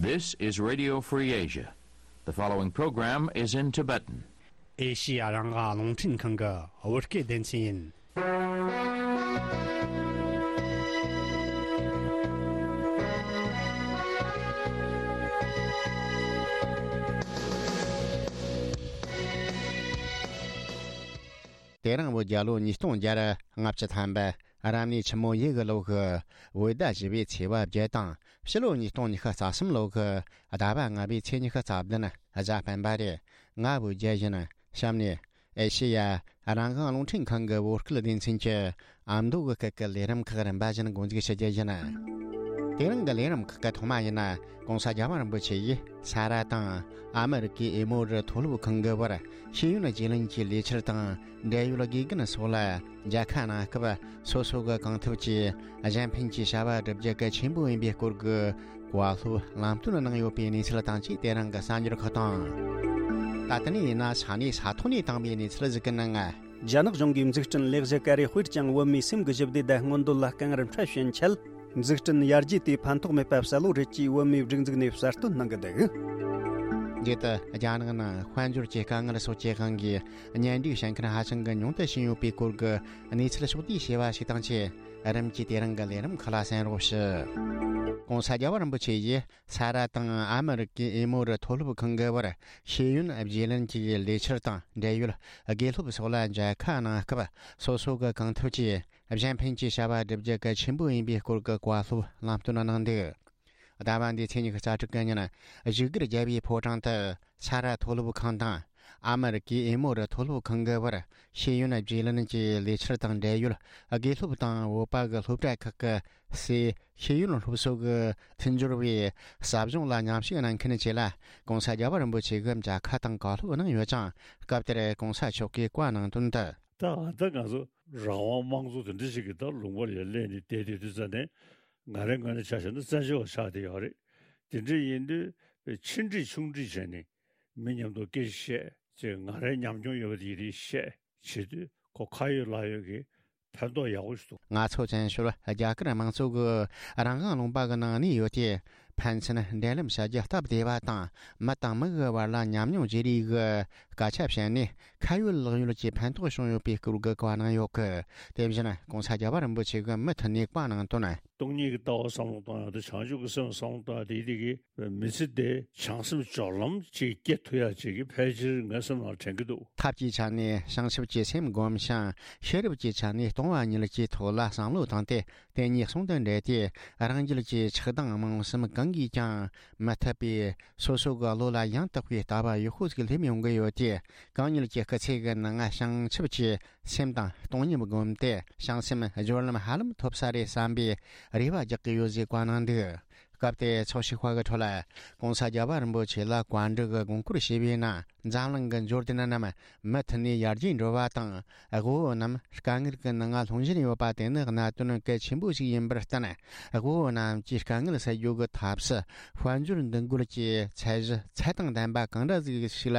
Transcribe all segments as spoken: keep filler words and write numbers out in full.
This is Radio Free Asia. The following program is in Tibetan. ཨེ་ཤི་ཡ་རང་དབང་རླུང་འཕྲིན་ཁང་གི་བོད་སྐད་སྡེ་ཚན་ཡིན། དེ་རིང་བོད་རྒྱལ་ལོ་ཉིས་སྟོང་བརྒྱ་ལྔ་བཅུ་ཐམ་པ། རབ་གནས་ཆུ་མོ་ཡོས་གི་ལོ་གི་བོད་ཟླ་བཞི་པའི་ཚེས་པ་བརྒྱད་དང་། ཕྱི་ལོ་ཉིས་སྟོང་ཉི་ཤུ་རྩ་གསུམ་ལོ་གི་ཟླ་བ་ལྔ་པའི་ཚེས་ཉི་ཤུ་རྩ་བདུན་གཟའ་སྤེན་པ་རེད། ང་བོད་རྒྱལ་ཡིན། གཤམ་ནས་ཨེ་ཤེ་ཡ་རང་དབང་རླུང་འཕྲིན་ཁང་གི་བོད་སྐད་སྡེ་ཚན་གྱི་ཨ་མདོ་གི་སྐད་ཀྱི་ལས་རིམ་ཁག་རིམ་པ་བཞིན་འགོ་འཛུགས་ཞུ་རྒྱུ་ཡིན། དེ་རིང་གི་ལས་རིམ་ཁག་གི་ཐོག་མ་ཡིན་ན། ༸གོང་ས་༸རྒྱལ་བ་རིན་པོ་ཆེ་ཡིས་ས་ར་དང་ཨ་མི་རི་ཀའི་ཨེ་མོ་རི་མཐོ་སློབ་ཁང་གི་བར་ཤེས་ཡོན་བརྗེ་ལེན་གྱི་ལས་འཆར་དང་འབྲེལ་ཡོད་དགེ་རྒན་སོགས་ལ་མཇལ་ཁ་གནང་སྐབས། སོ་སོ་གི་གང་ཐུབ་ཀྱིས་གཞན་ཕན་གྱི་བྱ་བ་བསྒྲུབ་རྒྱུ་གལ་ཆེན་པོ་ཡིན་པའི་སྐོར་གྱི་བཀའ་སློབ་ལམ་སྟོན་གནང་ཡོད་པའི་གནས་ཚུལ་དང་བཅས་དེ་རིང་གི་གསར་འགྱུར་ཁག་དང་། ད་ལྟ་ནས་ཡིན་ན་ས་གནས་ས་ཐོག་ནས་བཏང་བའི་གནས་ཚུལ་ཞིག་གི་ནང་། རྒྱ་ནག་གཞུང་གིས་འཛུགས་སྐྲུན་ལེགས་བཞི་ཀ་རེ་དཔེར་བྱང་བོད་མིའི་སེམས་ཀྱི་ཞི་བདེ་དང་མངོན་འདོད་ལ་དཀའ་ངལ་འཕྲད་བཞིན་ཆད། འཛུགས་སྐྲུན་ཡར་རྒྱས་དེ་ཕན་ཐོགས་མེད་པ་གསལ་བོ་རེད་ཅེས་བོད་མིའི་སྒྲིག་འཛུགས་ནས་གསལ་སྟོན་གནང་གི་འདུག། རྗེས་སུ་རྒྱ་ནག་ནང་དཔལ་འབྱོར་གྱི་དཀའ་ངལ་སོགས་ཀྱི་དབང་གིས་གཉེན་སྒྲིག་བྱེད་མཁན་ཧ་ཅང་གི་ཉུང་དུ་ཕྱིན་ཡོད་པའི་སྐོར་གྱི་གནས་ཚུལ་ཕྱོགས་བསྡུས་བྱས་པ་ཞིག་དང་བཅས། རིམ་གྱིས་དེ་རིང་གི་ལས་རིམ་ཁག་ལ་གསན་རོགས་ཞུ། ༸གོང་ས་༸རྒྱལ་བ་རིན་པོ་ཆེ་ཡིས་ས་ར་དང་ཨ་མི་རི་ཀའི་ཨེ་མོ་རི་མཐོ་སློབ་ཁང་གི་བར་ཤེས་ཡོན་བརྗེ་ལེན་གྱི་ལས་འཆར་དང་འབྲེལ་ཡོད་དགེ་སློབ་སོགས་ལ་མཇལ་ཁ་གནང་སྐབས། སོ་སོ་གི་གང་ཐུབ་ཀྱིས་གཞན་ཕན་གྱི་བྱ་བ་བསྒྲུབ་རྒྱུ་གལ་ཆེན་པོ་ཡིན་པའི་སྐོར་གྱི་བཀའ་སློབ་ལམ་སྟོན་གནང་འདུག། ཟླ་བ་འདིའི་ཚེས་ཉི་ཤུ་རྩ་དྲུག་གི་ཉིན། བཞུགས་སྒར་རྒྱལ་བའི་ཕོ་བྲང་དུ་ས་ར་མཐོ་སློབ་ཁང་དང་། ཨ་མི་རི་ཀའི་ཨེ་མོ་རི་མཐོ་སློབ་ཁང་གི་བར་ཤེས་ཡོན་བརྗེ་ལེན་གྱི་ལས་འཆར་དང་འབྲེལ་ཡོད་དགེ་སློབ་དང་བོད་པ་གི་སློབ་གྲྭ་ཁག་གི་སའི་ཤེས་ཡོན་སློབ་གསོ་གི་མཐུན་སྦྱོར་བའི་ཟབ་སྦྱོང་ལ་མཉམ་ཞུགས་གནང་མཁན་བཅས་ལ་༸གོང་ས་༸རྒྱལ་བ་རིན་པོ་ཆེ་གིས་མཇལ་ཁ་དང་བཀའ་སློབ་གནང་ཡོད་ཅིང་། སྐབས་དེར་༸གོང་ས་མཆོག་གིས་བཀའ་གནང་དོན་དུ། ད་ད་ང་ཚོ་རང་དབང་དམངས་གཙོ་དེ་འདྲ་ཞིག་གི་ད་ལུང་པ་ལ་སླེབས་ནས་བསྡད་དུས་དུས་ཙ་ནས། ང་རའི་ངོས་ནས་ཆ་བཞག་ན་བཙན་བྱོལ་བ་ཆགས་བསྡད་ཡོད་རེད། དེ་འདྲ་ཡིན་དུས་ཆེ་འདྲིས་ཆུང་འདྲིས་བྱས་ནས་མི་མཉམ་དུ་སྐད་ཆ་བཤད་ཅེས། ང་རའི་ཉམས་མྱོང་ཡོད་པ་དེ་ཡི་རིགས་བཤད་བྱེད་དུས་ཁོ་ཁ་ཡོད་ལག་ཡོད་ཀྱི་ཕན་ཐོགས་ཡག་པོ་ཞིག་འདུག། ང་ཚོ་བཙན་བྱོལ་རྒྱ་གར་དམངས་གཙོ་གི་རང་དབང་ལུང་པ་གི་ནང་གནས་ཡོད་དེ། ཕན་ཚུན་འབྲེལ་ལམ་བྱ་རྒྱུ་སྟབས་བདེ་བ་དང་། མི་དང་མི་གི་བར་ལ་ཉམས་མྱོང་བརྗེ་རེས་གི་སྐད་ཆ་བཤད་ནས་ཁ་ཡོད་ལག་ཡོད་ཀྱི་ཕན་ཐོགས་བྱུང་ཡོད་པའི་སྐོར་གྱི་བཀའ་གནང་ཡོད་གི། དེ་བཞིན་༸གོང་ས་༸རྒྱལ་བ་རིན་པོ་ཆེ་གིས་མུ་མཐུད་ནས་བཀའ་གནང་དོན། སྟོང་ཉིད་ཀྱི་ལྟ་བ་བསམ་བློ་གཏོང་ཡག་དང་བྱང་ཆུབ་ཀྱི་སེམས་བསམ་བློ་གཏོང་ཡག་དེ་དེ་གི་མི་ཚེ་དེ་བྱང་སེམས་སྦྱོར་ལམ་ཅིག་སྐྱེ་ཐུབ་ཡག་ཅིག་གི་ཕལ་ཆེར་ངའི་སེམས་ནང་དྲན་གྱི་འདུག། ཐབས་ཀྱི་ཆ་ནས་བྱང་ཆུབ་ཀྱི་སེམས་བསྒོམ་ཞིང་། ཤེས་རབ་ཀྱི་ཆ་ནས་སྟོང་པ་ཉིད་ཀྱི་ཐོག་ལ་བསམ་བློ་བཏང་སྟེ། དེ་གཉིས་ཟུང་དུ་འབྲེལ་ཏེ། རང་རྒྱུད་ཀྱི་ཆགས་སྡང་རྨོངས་གསུམ་གང་གིས་ཀྱང་མི་ཐུབ་པས། སོ་སོ་གི་བློ་ལ་ཡང་དག་པའི་ལྟ་བ་ཡག་པོ་ཞིག་སླེབས་ཡོང་གི་ཡོད་དེ། གང་ཉིད་ཀྱི་སྐུ་ཚེ་གི་ནང་བྱང་ཆུབ་ཀྱི་སེམས་དང་སྟོང་ཉིད་བསྒོམས་ཏེ། བྱང་སེམས་སྦྱོར་ལམ་ཧ་ལམ་ཐོབ་ས་རེད་བསམ་པའི་རེ་བ་རྒྱག་གི་ཡོད་ཅེས་བཀའ་གནང་འདུག། སྐབས་དེར་ཚོགས་ཞུགས་པ་གི་ཁྲོད་ལ་༸གོང་ས་༸རྒྱལ་བ་རིན་པོ་ཆེ་ལ་བཀའ་འདྲི་གི་དགོངས་སྐོར་ཞུས་པའི་ནང་། འཛམ་གླིང་གི་འབྱོར་ལྡན་རྣམས་མུ་མཐུད་ནས་ཡར་རྒྱས་འགྲོ་བ་དང་། དབུལ་བོ་རྣམས་དཀའ་ངལ་གྱི་ནང་ལྷུང་བཞིན་ཡོད་པ་དེ་ནི་གནད་དོན་གལ་ཆེན་པོ་ཞིག་ཡིན་པར་བརྟེན། དབུལ་བོ་རྣམས་ཀྱི་དཀའ་ངལ་སེལ་རྒྱུ་གི་ཐབས་སུ་དཔལ་འབྱོར་འདུ་འགོད་ཀྱི་ཚད་གཞི་ཚད་དང་ལྡན་པ་གང་འདྲ་ཞིག་ལ་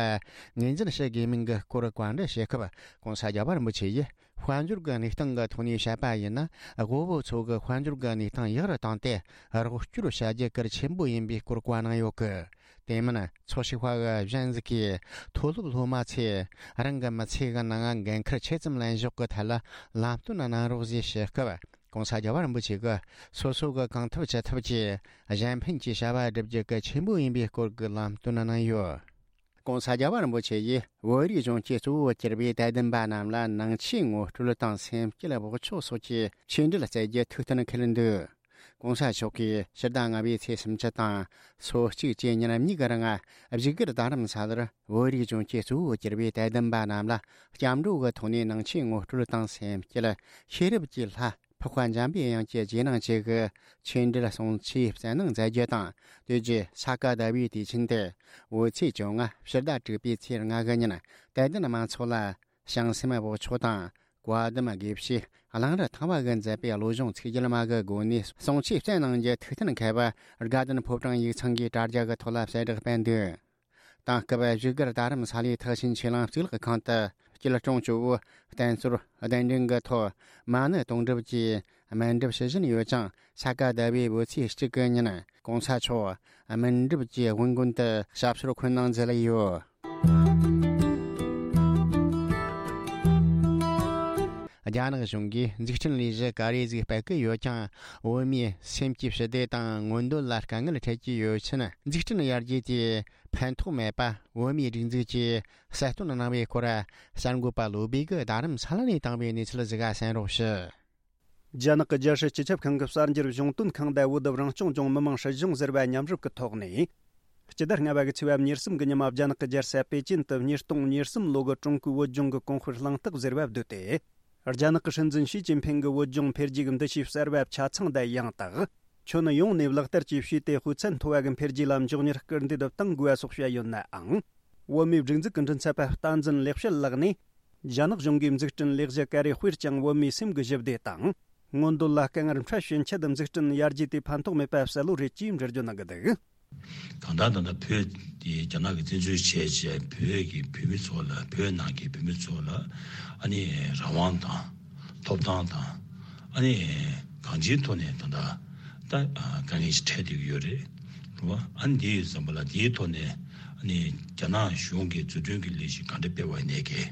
ངོས་འཛིན་བྱེད་དགོས་མིན་གྱི་སྐོར་བཀའ་འདྲི་ཞུས་སྐབས། ༸གོང་ས་༸རྒྱལ་བ་རིན་པོ་ཆེ་ཡིས། དཔལ་འབྱོར་གྱི་གནས་སྟངས་ཀྱི་ཐོག་ནས་བཤད་པ་ཡིན་ན། དབུལ་བོ་ཚོ་གི་དཔལ་འབྱོར་གྱི་གནས་སྟངས་ཡག་རུ་བཏང་སྟེ། རོགས་སྐྱོར་བྱ་རྒྱུ་གལ་ཆེན་པོ་ཡིན་པའི་སྐོར་བཀའ་གནང་ཡོད་གི། དེ་མིན་ཚོགས་ཞུགས་པ་གཞན་ཞིག་གིས་མཐོ་སློབ་སློབ་མ་ཚོས་རང་གི་མི་ཚེ་གི་ནང་འགན་འཁུར་ཆེ་ཙམ་ལེན་ཕྱོགས་ཀྱི་ཐད་ལ་ལམ་སྟོན་གནང་རོགས་ཞེས་ཞུས་སྐབས། ༸གོང་ས་༸རྒྱལ་བ་རིན་པོ་ཆེ་གིས་སོ་སོ་གི་གང་ཐུབ་ཅི་ཐུབ་ཀྱིས་གཞན་ཕན་གྱི་བྱ་བ་བསྒྲུབ་རྒྱུ་གལ་ཆེན་པོ་ཡིན་པའི་སྐོར་གྱི་ལམ་སྟོན་གནང་ཡོད། ༸གོང་ས་༸རྒྱལ་བ་རིན་པོ་ཆེ་ཡིས་བོད་རིགས་གཞུང་གི་གཙོ་བོར་གྱུར་པའི་དད་ལྡན་པ་རྣམས་ལ་ནང་ཆོས་ངོ་སྤྲོད་དང་སེམས་བསྐྱེད་བག་ཆགས་སོགས་ཀྱི་ཆོས་འབྲེལ་སྩལ་རྒྱུ་ཐུགས་གཏན་འཁེལ་འདུག། ༸གོང་ས་མཆོག་གིས་ཕྱི་ཟླ་ལྔ་པའི་ཚེས་སུམ་ཅུ་དང་སོ་གཅིག་བཅས་ཉིན་གཉིས་ཀྱི་རིང་བཞུགས་སྒར་རྡ་རམ་ས་ལར་བོད་རིགས་གཞུང་གི་གཙོ་བོར་གྱུར་པའི་དད་ལྡན་པ་རྣམས་ལ་སྐྱབས་འགྲོ་གི་ཐོག་ནས་ནང་ཆོས་ངོ་སྤྲོད་དང་སེམས་བསྐྱེད། ཤེས་རབ་ཀྱི་ལྷ། འཕགས་པ་འཇམ་པའི་དབྱངས་ཀྱི་རྗེས་གནང་བཅས་ཀྱི་ཆོས་འབྲེལ་གསུང་ཆོས་སྩལ་གནང་མཛད་རྒྱུ་དང་། དེ་རྗེས་ས་ག་ཟླ་བའི་དུས་ཆེན་དེ་བོད་ཚེས་བཅོ་ལྔ་ཕྱི་ཟླ་དྲུག་པའི་ཚེས་ལྔ་གི་ཉིན་དད་ལྡན་མང་ཚོགས་ལ་བྱང་སེམས་བག་ཆགས་དང་བཀའ་གདམས་དགེ་བཤེས་གླང་རི་ཐང་པ་གིས་མཛད་པའི་བློ་སྦྱོང་ཚིག་བརྒྱད་མ་གི་སྒོ་ནས་གསུང་ཆོས་སྩལ་གནང་རྒྱུ་ཐུགས་གཏན་འཁེལ་བར་དགའ་ལྡན་ཕོ་བྲང་ཡིག་ཚང་གིས་དྲ་རྒྱ་གི་ཐོག་ལ་གསལ་བསྒྲགས་སྤེལ་འདུག། དེང་སྐབས་བཞུགས་སྒར་རྡ་རམ་ས་ལའི་ཐེག་ཆེན་ཆོས་གླིང་གཙུག་ལག་ཁང་དུ་སྐྱིད་གྲོང་ཇོ་བོ་བསྟན་འཛིན་གདན་འདྲེན་གྱི་ཐོག་མ་ཎི་དུང་སྒྲུབ་ཀྱིས་སྨན་སྒྲུབ་ཞུ་བཞིན་ཡོད་ཅིང་། ས་ག་ཟླ་བའི་བོད་ཚེས་གཅིག་གི་ཉིན་ གོང་ས་མཆོག་སྨིན་གྲུབ་ཀྱི་དབུ་འགོ་དུ་ཞབས་སོར་འཁོད་གནང་མཛད་ཡོད། རྒྱ་ནག་གཞུང་གིས་འཛུགས་སྐྲུན་ལས་གཞི་ག་རེ་ཟིག་སྤེལ་གི་ཡོད་ཀྱང་། བོད་མིའི་སེམས་ཀྱི་ཞི་བདེ་དང་མངོན་འདོད་ལ་དཀའ་ངལ་འཕྲད་ཀྱི་ཡོད་ཕྱིན། འཛུགས་སྐྲུན་ཡར་རྒྱས་དེ་ཕན་ཐོགས་མེད་པ། བོད་མིའི་སྒྲིག་འཛུགས་ཀྱིས་གསལ་སྟོན་གནང་བའི་སྐོར། གསར་འགོད་པ་བློ་བྷེ་གིས་རྡ་རམ་ས་ལ་ནས་བཏང་བའི་གནས་ཚུལ་ཟིག་གསན་རོགས་ཞུ། རྒྱ་ནག་གི་རྒྱལ་སྲིད་སྤྱི་ཁྱབ་ཁང་གི་གསར་འགྱུར་གཞུང་དོན་ཁང་དང་བོད་དུ་རང་སྐྱོང་ལྗོངས་མི་དམངས་སྲིད་གཞུང་ཟེར་བ་མཉམ་རུབ་ཀྱི་ཐོག་ནས། སྤྱི་ཟླ་ལྔ་པ་གི་ཚེས་པ་ཉེར་གསུམ་གྱི་ཉི་མ་རྒྱ་ནག་གི་རྒྱལ་ས་པེ་ཅིན་དུ་ཉིས་སྟོང་ཉེར་གསུམ་ལོ་གི་ཀྲུང་གོའི་བོད་ལྗོངས་ཀྱི་གོང་སྤེལ་གླེང་སྟེགས་ཟེར་བ་བསྡུས་ཏེ། རྒྱ་ནག་གི་སྲིད་འཛིན་ཞི་ཅིན་ཕིང་གི་བོད་ལྗོངས་འཕེལ་རྒྱས་ཀྱི་འདུ་ཤེས་གསར་བ་ཆ་ཚང་དང་ཡང་དག་ཁྱོན་ཡོངས་ནས་ལག་བསྟར་བཅས་བྱས་ཏེ། དཔེ་ཚད་མཐོ་བ་གི་འཕེལ་རྒྱས་ལ་མགྱོགས་མྱུར་སྐུལ་འདེད་གཏང་དགོས་པ་སོགས་བཤད་ཡོད་ནའང་། བོད་མིའི་སྒྲིག་འཛུགས་ཀྱི་མགྲིན་ཚབ་པ་བསྟན་འཛིན་ལེགས་བཤད་ལགས་ནས། རྒྱ་ནག་གཞུང་གིས་འཛུགས་སྐྲུན་ལས་གཞི་ག་རེ་སྤེལ་ཀྱང་བོད་མིའི་སེམས་ཀྱི་ཞི་བདེ་དང་། མངོན་འདོད་ལ་དཀའ་ངལ་འཕྲད་ཕྱིན་ཆད་འཛུགས་སྐྲུན་ཡར་རྒྱས་དེ་ཕན་ཐོགས་མེད་པ་གསལ་བོ་རེད་ཅེས་འགྲེལ་བརྗོད་གནང་གི་འདུག། གང་ལྟར་ད་ལྟ་བོད་དེ་རྒྱ་ནག་གིས་བཙན་འཛུལ་བྱས་བྱས། བོད་ཀྱི་བོད་མི་ཚོ་ལ། བོད་ནང་གི་བོད་མི་ཚོ་ལ་ཨ་ནི་རང་དབང་དང་ཐོབ་ཐང་དང་། ཨ་ནི་གང་ཅིའི་ཐོག་ནས་ད་ལྟ་ད་དཀའ་ངལ་ཞིག་འཕྲད་བསྡད་ཀྱི་ཡོད་རེད། རེད་བ། ཨ་ནི་དེ་ཡོད་ཙམ་པ་ལ། དེའི་ཐོག་ནས་ཨ་ནི་རྒྱ་ནག་གཞུང་གིས་འཛུགས་སྐྲུན་གྱི་ལས་གཞི་གང་འདྲ་སྤེལ་བ་ཡིན་ནའི་གི།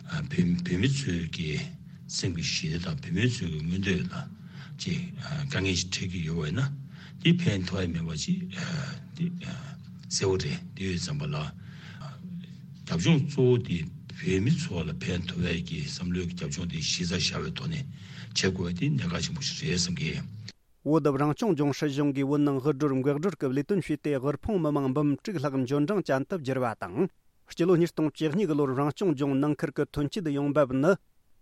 ཨ། བོད་བོད་མི་ཚོའི་གི་སེམས་ཀྱི་ཞི་བདེ་དང་བོད་མི་ཚོའི་གི་མངོན་འདོད་ལ་ཅིག་ཨ། དཀའ་ངལ་ཞིག་འཕྲད་ཀྱི་ཡོད་པ་ཡིན་ན། འདི་ཕན་ཐོགས་ཡ་མེད་པ་ཅིག་ཨ། འདི་ཨ། གསལ་བོ་རེད། དེ་ཡོད་ཙམ་པ་ལ། ཨ། རྒྱབ་ལྗོངས་གཙོ་བོ་དེ་བོད་མི་ཚོ་ལ་ཕན་ཐོགས་ཡ་གི་བསམ་བློའི་གི་རྒྱབ་ལྗོངས་དེ་གཞི་རྩར་བཞག་པའི་ཐོག་ནས་བྱེད་དགོས་པ་དེ་གནད་འགག་ཆེན་པོ་ཞིག་རེད་བསམ་གི། བོད་རང་སྐྱོང་ལྗོངས་སྲིད་གཞུང་གིས་བོད་ནང་དབུལ་སྒྲོལ་འགག་སྒྲོལ་གྱི་ལས་དོན་བྱས་ཏེ། དབུལ་ཕོངས་མི་མང་འབུམ་དྲུག་ལྷག་འབྱོར་འབྲིང་ཅན་དུ་བསྒྱུར་བ་དང་། སྤྱི་ལོ་ཉིས་སྟོང་བཅུ་གཉིས་གི་ལོར་རང་སྐྱོང་ལྗོངས་ནང་ཁུལ་གྱི་ཐོན་སྐྱེད་ཡོང་འབབ་ནི་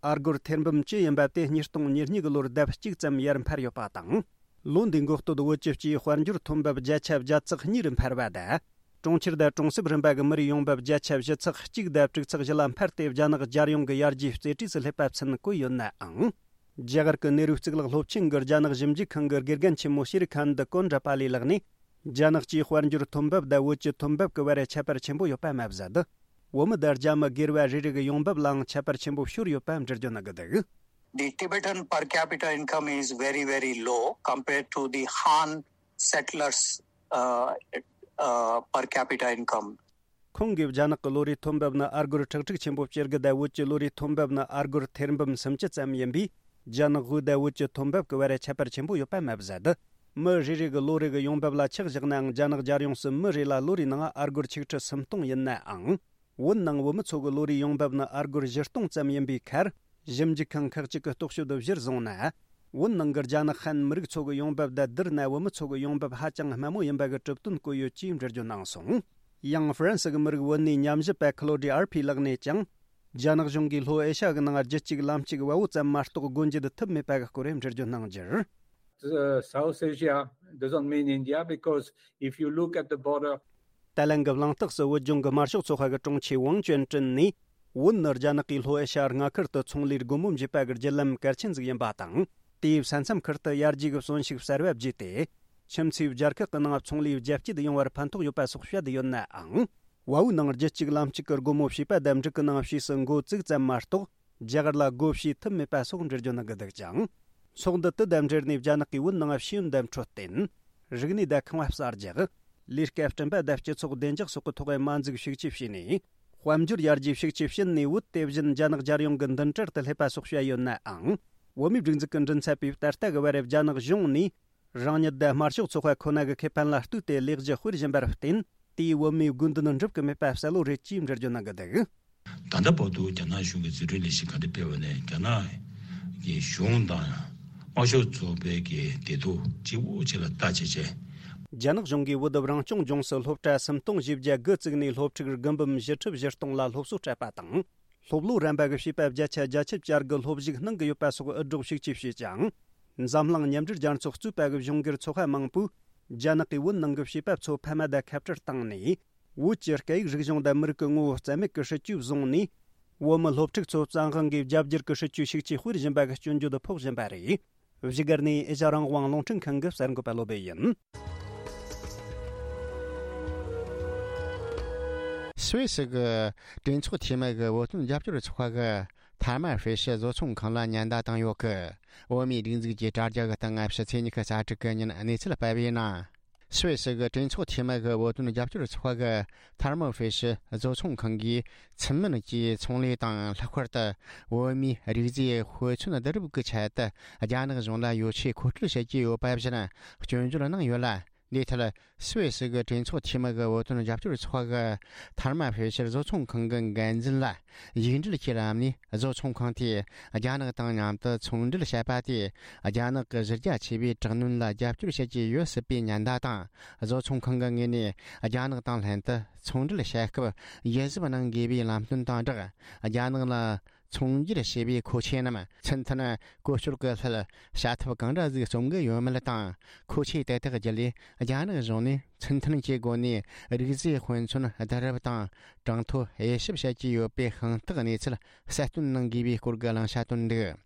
ཨ་སྒོར་ཐེར་འབུམ་བཅུ་ཡིན་པ་དེ་ཉིས་སྟོང་ཉེར་གཉིས་གི་ལོར་ལྡབ་གཅིག་ཙམ་ཡར་འཕར་ཡོད་པ་དང་། ལོ་འདིའི་འགོ་སྟོད་བོད་ཀྱི་སྤྱིའི་དཔལ་འབྱོར་ཐོན་འབབ་བརྒྱ་ཆ་བརྒྱ་ཚེག་གཉིས་རུ་འཕར་བ་དང་། གྲོང་ཁྱེར་དང་གྲོང་གསེབ་རིམ་པ་གི་མི་རིགས་ཡོང་འབབ་བརྒྱ་ཆ་བཞི་ཚེག་གཅིག་དང་དྲུག་ཚེག་བཞི་ལ་འཕར་ཏེ། རྒྱ་ནག་རྒྱལ་ཡོངས་ཀྱི་ཡར་རྒྱས་རྩེ་གྲས་སུ་སླེབས་པ་མཚོན་བཀོད་ཡོད་ནའང་། རྒྱ་གར་གྱི་ནེ་རུ་གཙུག་ལག་སློབ་ཆེན་གྱི་རྒྱ་ནག་ཞིབ་འཇུག་ཁང་གི་དགེ་རྒན་ཆེན་མོ་ཤེ་རི་ཁན་དི་ཀོན་ཌྲ་པ་ལི་ལགས་ནས། རྒྱ་ནག་སྤྱིའི་དཔལ་འབྱོར་ཐོན་འབབ་དང་བོད་ཀྱི་ཐོན་འབབ་ཀྱི་བར་ཁྱད་པར་ཆེན་པོ་ཡོད་པ་མ་ཟད། བོད་མི་དང་རྒྱ་མི་སྒེར་བ་རེ་རེ་གི་ཡོང་འབབ་ལའང་ཁྱད་པར་ཆེན་པོ་ཤོར་ཡོད་པ་འགྲེལ་བརྗོད་གནང་གི་འདུག། The Tibetan per capita income is very, very low compared to the Han settlers, uh, uh, per capita income. ཁོང་གིས། རྒྱ་ནག་གི་ལོ་རེའི་ཐོན་འབབ་ནི་ཨ་སྒོར་ཁྲག་ཁྲིག་ཆེན་པོ་བཅུ་དགུ་དང་། བོད་ཀྱི་ལོ་རེའི་ཐོན་འབབ་ནི་ཨ་སྒོར་ཐེར་འབུམ་སུམ་ཅུ་ཙམ་ཡིན་པས། རྒྱ་ནག་དབུས་དང་བོད་ཀྱི་ཐོན་འབབ་ཀྱི་བར་ཁྱད་པར་ཆེན་པོ་ཡོད་པ་མ་ཟད། མི་རེ་རེ་གི་ལོ་རེ་གི་ཡོང་འབབ་ལ་ཆ་བཞག་ནའང་། རྒྱ་ནག་རྒྱལ་ཡོངས་སུ་མི་རེ་ལ་ལོ་རེའི་ནང་ཨ་སྒོར་ཆིག་ཁྲི་སུམ་སྟོང་ཡིན་ནའང་། བོད་ནང་བོད་མི་ཚོ་གི་ལོ་རེའི་ཡོང་འབབ་ནི་ཨ་སྒོར་བཞི་སྟོང་ཙམ་ཡིན་པའི་ཁར། ཞིབ་འཇུག་ཁང་ཁག་ཅིག་གི་རྟོག་དཔྱོད་དུ་གཞིར་བཟུང་ན། བོད་ནང་གི་རྒྱ་ནག་ཧན་མི་རིགས་ཚོ་གི་ཡོང་འབབ་དང་བསྡུར་ན། བོད་མི་ཚོ་གི་ཡོང་འབབ་ཧ་ཅང་དམའ་མོ་ཡིན་པ་གི་གྲུབ་དོན་བཀོད་ཡོད་ཅེས་འགྲེལ་བརྗོད་གནང་སོང་། ཡང་ཧྥ་རན་སི་གི་མི་རིགས་བོད་གནས་ཉམས་ཞིབ་པ་ཁི་ལོ་ཌི་ཨར་ཕི་ལགས་ནས་ཀྱང་། རྒྱ་ནག་གཞུང་གིས་ལྷོ་ཨེ་ཤ་ཡ་གི་ནང་རྒྱུད་གཅིག་ལམ་གཅིག་བལ་པོ་ཙམ་མ་གཏོགས་སྒོ་འབྱེད་ཐུབ་མེད་པ་གི་སྐོར་འགྲེལ་བརྗོད་གནང་རྒྱུར། Uh, South Asia doesn't mean India because if you look at the border, ཏཱ་ལན་གྱི་གླེང་སྟེགས་སུ་བོད་ལྗོངས་ཀྱི་དམར་ཤོག་ཚོགས་པ་གི་དྲུང་ཆེ་ཝང་ཅོན་ཀྲིན་ནས། བོད་ནི་རྒྱ་ནག་གིས་ལྷོ་ཨེ་ཤ་ཡ་མངའ་ཁུལ་དུ་ཚོང་ལས་སྒོ་མོ་འབྱེད་པ་གི་བརྒྱུད་ལམ་གལ་ཆེན་ཟིག་ཡིན་པ་དང་། དེའི་ས་མཚམས་ཁུལ་དུ་ཡར་རྒྱས་ཀྱི་གསོན་ཤུགས་གསར་བ་བརྗེས་ཏེ། ཁྱིམ་མཚེས་རྒྱལ་ཁག་གི་ནང་ཚོང་ལས་རྒྱ་སྐྱེད་ཡོང་བར་ཕན་ཐོགས་ཡོད་པ་སོགས་བཤད་ཡོད་ནའང་། བལ་པོའི་ནང་རྒྱུད་གཅིག་ལམ་གཅིག་གི་སྒོ་མོ་ཕྱེས་པ་དང་། འབྲུག་གི་ནང་ཕྱིས་སུ་འགོ་བཙུགས་ཙམ་མ་གཏོགས། རྒྱ་གར་ལ་སྒོ་ཕྱེ་ཐུབ་མེད་པ་སོགས་འགྲེལ་བརྗོད་གནང་གི་འདུག་ཀྱང་། ཚོགས་འདུ་དེ་དང་འབྲེལ་ནས་རྒྱ་ནག་གིས་བོད་ནང་ཤེས་ཡོན་དང་འཕྲོད་བསྟེན། རིག་གནས་དང་ཁང་པ་གསར་རྒྱག། ལས་ཀ་བསྐྲུན་པ་དང་སྤྱི་ཚོགས་བདེ་འཇགས་སོགས་ཀྱི་ཐོག་མ་འཛུགས་ཤུགས་ཆེ་བྱས་ནས། དཔལ་འབྱོར་ཡར་རྒྱས་ཤུགས་ཆེ་ཕྱིན་ནས། བོད་དེ་བཞིན་རྒྱ་ནག་རྒྱལ་ཡོངས་ཀྱི་མདུན་གྲལ་དུ་སླེབས་པ་སོགས་བཤད་ཡོད་ནའང་། བོད་མིའི་སྒྲིག་འཛུགས་ཀྱི་མགྲིན་ཚབ་པས་ད་ལྟ་གི་བར་རྒྱ་ནག་གཞུང་ནས། རང་ཉིད་དང་དམར་ཤོག་ཚོགས་པ་ཁོ་ན་གི་ཁེ་ཕན་ལ་ལྟོས་ཏེ་ལས་གཞི་སྤེལ་བཞིན་པར་བརྟེན། དེས་བོད་མིའི་དགོས་འདུན་འགྲུབ་ཀྱི་མེད་པ་གསལ་བོ་རེད་ཅེས་འགྲེལ་བརྗོད་གནང་གི་འདུག། ད་ལྟ་བར་དུ་རྒྱ་ནག་གཞུང་གིས་འཛུགས་སྐྲུན་ལས་གཞི་ག་འདྲ་སྤེལ་བ་ནས། རྒྱ་ནག་གི་གཞུང་དང་དམར་ཤོག་ཚོགས་པའི་གི་བདེ་སྡུག་གཅིག་པོ་གཅིག་ལ་ལྟ་བྱས་བྱས། རྒྱ་ནག་གཞུང་གིས་བོད་རང་སྐྱོང་ལྗོངས་སུ་སློབ་གྲྭ་སུམ་སྟོང་བཞི་བརྒྱ་དགུ་བཙུགས་ནས། སློབ་ཕྲུག་དགུ་འབུམ་བཞི་ཁྲི་བཞི་སྟོང་ལ་སློབ་གསོ་སྤྲད་པ་དང་། སློབ་ལོ་རན་པ་གི་བྱིས་པ་བརྒྱ་ཆ་བརྒྱད་ཅུ་གྱ་དགུ་སློབ་ཞུགས་གནང་གི་ཡོད་པ་སོགས་འུད་སྒྲོག་ཤུགས་ཆེ་བྱས་ཀྱང་། འཛམ་གླིང་མཉམ་འབྲེལ་རྒྱལ་ཚོགས་གཙོས་པ་གི་གཞུང་སྒེར་ཚོགས་པ་མང་པོས། རྒྱ་ནག་གིས་བོད་ནང་གི་བྱིས་པ་ཚོ་ཕ་མ་དང་ཁ་བྲལ་བཏང་ནས། བོད་ཀྱི་སྐད་ཡིག་རིག་གཞུང་དང་མི་རིགས་ཀྱི་ངོ་བོ་རྩ་མེད་ཀྱི་སྲིད་ཇུས་བཟུང་ནས། བོད་མི་སློབ་ཕྲུག་ཚོ་བཙན་དབང་གིས་རྒྱ་བསྒྱུར་གྱི་སྲིད་ཇུས་ཤུགས་ཆེ་སྤེལ་བཞིན་པ་གི་སྐྱོན་བརྗོད་ཕོག་བཞིན་པ་རེད། བཞུགས་སྒར་ནས་ཨེ་ཤ་རང་དབང་རླུང་འཕྲིན་ཁང་གི་གསར་འགོད་པ་བློ་བྷེ་ཡིན། སུད་སི་གི་གྲོས་ཚོགས་འཐུས་མི་གི་བོད་དོན་རྒྱབ་སྐྱོར་ཚོགས་པ་གི་ཐ་མ་ཧྥེ་ཤི་བཟོ་ཚོང་ཁང་ལ་ཉེན་བརྡ་བཏང་ཡོད་གི། བོད་མིའི་སྒྲིག་འཛུགས་ཀྱི་དྲ་རྒྱ་གི་སྟེང་ཕྱི་ཚེས་ཉི་ཤུ་རྩ་དྲུག་གི་ཉིན་གནས་ཚུལ་སྤེལ་བའི་ནང་། སུད་སི་གི་གྲོས་ཚོགས་འཐུས་མི་གི་བོད་དོན་རྒྱབ་སྐྱོར་ཚོགས་པ་གི་ཐར་མོ་ཧྥེ་ཤི་བཟོ་ཚོང་ཁང་གིས་ཚུལ་མིན་གྱིས་ཚོང་ལས་དང་། ལྷག་པར་དུ་བོད་མིའི་རིགས་རྫས་དཔེ་མཚོན་བསྡུ་རུབ་ཀྱི་ཆེད་དུ་རྒྱ་ནག་གཞུང་ལ་ཡོ་ཆས་མཁོ་སྤྲོད་བྱེད་ཀྱི་ཡོད་པ་བཞིན་སྐྱོན་བརྗོད་གནང་ཡོད་ལ། འདིའི་ཐད་སུད་སི་གི་གྲོས་ཚོགས་འཐུས་མི་གི་བོད་དོན་རྒྱབ་སྐྱོར་ཚོགས་པ་གི་ཐར་མོ་ཧྥེ་ཤི་བཟོ་ཚོང་ཁང་གི་འགན་འཛིན་ལ་ཡིག་འབྲེལ་གྱི་ལམ་ནས། བཟོ་ཚོང་ཁང་དེས་རྒྱ་ནག་དང་མཉམ་དུ་ཚོང་འབྲེལ་བྱས་པ་དེས་རྒྱ་ནག་གི་གཞི་རྒྱ་ཆེ་བའི་དྲག་གནོན་ལ་རྒྱབ་སྐྱོར་བྱེད་ཀྱི་ཡོད་སྲིད་པའི་ཉེན་བརྡ་དང་། བཟོ་ཚོང་ཁང་གི་ངོས་ནས་རྒྱ་ནག་དང་ལྷན་དུ་ཚོང་འབྲེལ་བྱེད་སྐབས་ཡིད་གཟབ་གནང་དགོས་པའི་ལམ་སྟོན་དང་སྦྲགས། རྒྱ་ནག་ལ་ཚོང་སྒྱུར་བྱེད་པའི་མཁོ་ཆས་རྣམས་ཚུལ་མཐུན་བཀོལ་སྤྱོད་ཀྱི་སླད་བྱ་ཐབས་གང་འདྲ་ཟིག་རྩོམ་གི་ཡོད་མེད་དང་། མཁོ་ཆས་དེ་དག་བརྒྱུད་ལས་རྒྱ་ནག་གཞུང་ནས་ཚུལ་མཐུན་གྱི་སྒོ་ནས་རིགས་རྫས་དཔེ་མཚོན་བསྡུ་རུབ་དང་གྲངས་ཐོ་དབྱེ་ཞིབ་བྱེད་ཀྱི་ཡོད་པའི་དཔང་རྟགས་གནས་ཚུལ་གསལ་སྟོན་གནང་དགོས་པའི་སྐོར་གྱི་གླེང་བྱ་བཏོན་འདུག།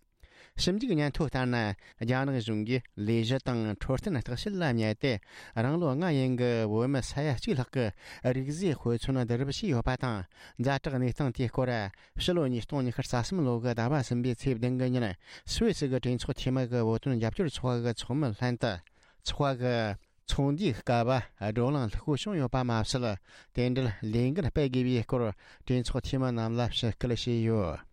ཞིབ་འཇུག་སྙན་ཐོ་ལྟར་ན། རྒྱ་ནག་གཞུང་གིས་ལས་གཞི་དང་འཕྲོད་བསྟེན་བརྟག་དཔྱད་ལ་དམིགས་ཏེ། རང་ལོ་ལྔ་ཡན་གྱི་བོད་མི་ས་ཡ་གཅིག་ལྷག་གི་རིགས་རྫས་དཔེ་མཚོན་བསྡུ་རུབ་བྱས་ཡོད་པ་དང་། ཛ་དྲག་གནས་སྟངས་དེའི་སྐོར། ཕྱི་ལོ་ཉིས་སྟོང་ཉི་ཤུ་རྩ་གསུམ་ལོ་གི་ཟླ་བ་གསུམ་པའི་ཚེས་བདུན་གི་ཉིན། སུད་སི་གི་གྲོས་ཚོགས་འཐུས་མི་གི་བོད་དོན་རྒྱབ་སྐྱོར་ཚོགས་པ་གི་ཚོགས་མི་ལྷན་དུ། ཚོགས་པ་གི་ཚོགས་འདུའི་སྐབས་བགྲོ་གླེང་ལྷུག་པོ་བྱུང་ཡོད་པ་མ་ཟད། དེ་འབྲེལ་ལས་འགུལ་སྤེལ་དགོས་པའི་སྐོར་གྲོས་ཚོགས་འཐུས་མི་རྣམས་ལ་ཞུ་སྐུལ་བྱས་ཡོད།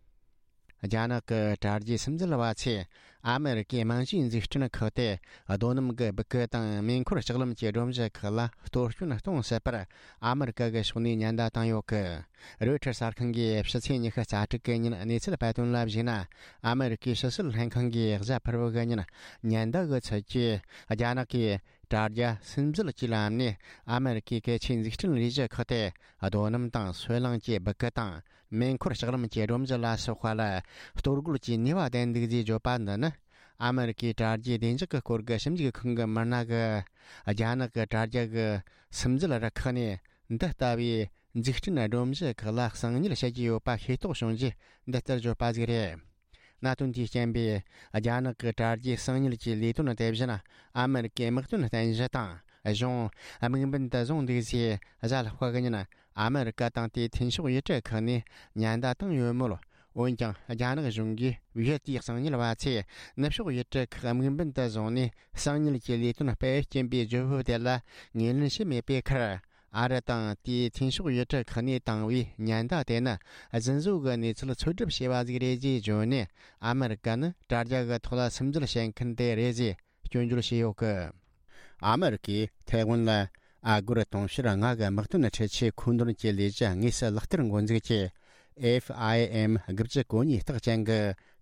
རྒྱ་ནག་གི་དྲ་རྒྱའི་སིམ་འཛུལ་བ་ཚོས་ཨ་མེ་རི་ཀའི་རྨང་གཞིའི་འཛུགས་སྐྲུན་ཁག་སྟེ། རྡོ་སྣུམ་གྱི་སྦུ་གུ་དང་མེ་འཁོར་ལྕགས་ལམ་གྱི་སྒྲོམ་གཞི་ཁག་ལ་གཏོར་སྐྱོན་གཏོང་སྲིད་པར་ཨ་མེ་རི་ཀ་གི་ཕྱོགས་ནས་ཉེན་བརྡ་བཏང་ཡོད་སྐད། རོའི་ཊར་གསར་ཁང་གིས་ཕྱི་ཚེས་ཉི་ཤུ་རྩ་དྲུག་གི་ཉིན་གནས་ཚུལ་སྤེལ་དོན་ལ་གཞིགས་ན། ཨ་མེ་རི་ཀའི་ཕྱི་སྲིད་ལྷན་ཁང་གིས་གཟའ་ཕུར་བུ་གི་ཉིན་ཉེན་བརྡ་གི་ཚུལ་གྱིས། རྒྱ་ནག་གིས་དྲ་རྒྱ་སིམ་འཛུལ་གྱི་ལམ་ནས་ཨ་མེ་རི་ཀའི་གལ་ཆེའི་འཛུགས་སྐྲུན་ལས་གཞི་ཁག་སྟེ། རྡོ་སྣུམ་དང་སོལ་རླངས་ཀྱི་སྦུ་གུ་དང་། མེ་འཁོར་ལྕགས་ལམ་གྱི་སྒྲོམ་གཞི་ལ་སོགས་པ་ལ་གཏོར་རྒོལ་གྱི་ནུས་པ་ལྡན་འདུག་ཅེས་བརྗོད་པ་འདི་ནི། ཨ་མེ་རི་ཀའི་དྲ་རྒྱའི་བདེ་འཇགས་ཀྱི་སྐོར་གྱི་ཞིབ་འཇུག་ཁང་གི་མི་སྣ་གིས། རྒྱ་ནག་གི་དྲ་རྒྱ་གི་སིམ་འཛུལ་རུ་ཁག་ནས་འདི་ལྟ་བུའི་འཛུགས་སྐྲུན་སྒྲོམ་གཞི་ཁག་ལ་གསང་ཉུལ་བྱེད་ཀྱི་ཡོད་པ་ཤེས་རྟོགས་བྱུང་རྗེས་འདི་ལྟར་བརྗོད་པ་ཟིག་རེད། གནད་དོན་དེའི་རྐྱེན་པས། རྒྱ་ནག་གི་དྲ་རྒྱའི་གསང་ཉུལ་གྱི་ལས་དོན་དེ་བཞིན་ཨ་མེ་རི་ཀའི་དམག་དོན་རྟེན་གཞི་དང་གཞུང་དམིགས་འབེན་དུ་བཟུང་འདུག་ཅེས་གཟའ་ལྷག་པ་གི་ཉིན་ཨ་མེ་རི་ཀ་དང་དེའི་མཐུན་ཕྱོགས་ཡུལ་གྲུ་ཁག་ནས་ཉེན་བརྡ་བཏང་ཡོད་མོད། འོན་ཀྱང་རྒྱ་ནག་གཞུང་གིས་བོད་དེའི་གསང་ཉུལ་བ་ཚོས་ནུབ་ཕྱོགས་ཡུལ་གྲུ་ཁག་དམིགས་འབེན་དུ་བཟུང་ནས་གསང་ཉུལ་གྱི་ལས་དོན་སྤེལ་རྐྱེན་པའི་བརྗོད་བབ་དེ་ལ་ངོས་ལེན་བྱས་མེད་པའི་ཁར། ཨ་རི་དང་དེའི་མཐུན་ཕྱོགས་ཡུལ་གྲུ་ཁག་ནས་བཏང་བའི་ཉེན་བརྡ་དེ་ནི་རྫུན་བཟོ་གི་གནས་ཚུལ་འཚོལ་སྒྲུབ་བྱས་པ་ཟིག་རེད་ཅེས་བརྗོད་ནས། ཨ་མེ་རི་ཀ་ནི་དྲ་རྒྱ་གི་ཐོག་ལ་སིམ་འཛུལ་བྱེད་མཁན་དེ་རེད་ཅེས་སྐྱོན་བརྗོད་བྱས་ཡོད་གི། ཨ་མེ་རི་ཀས་ཐའེ་ཝན་ལ་ཨ་སྒོར་དུང་ཕྱུར་ལྔ་གི་དམག་དོན་འཕྲུལ་ཆས་མཁོ་འདོན་གྱི་ལས་གཞི་དངོས་སུ་ལག་བསྟར་འགོ་འཛུགས་ཀྱིས། F I M དགུ་བཅུ་གོ་གཉིས་རྟགས་ཅན་གྱི་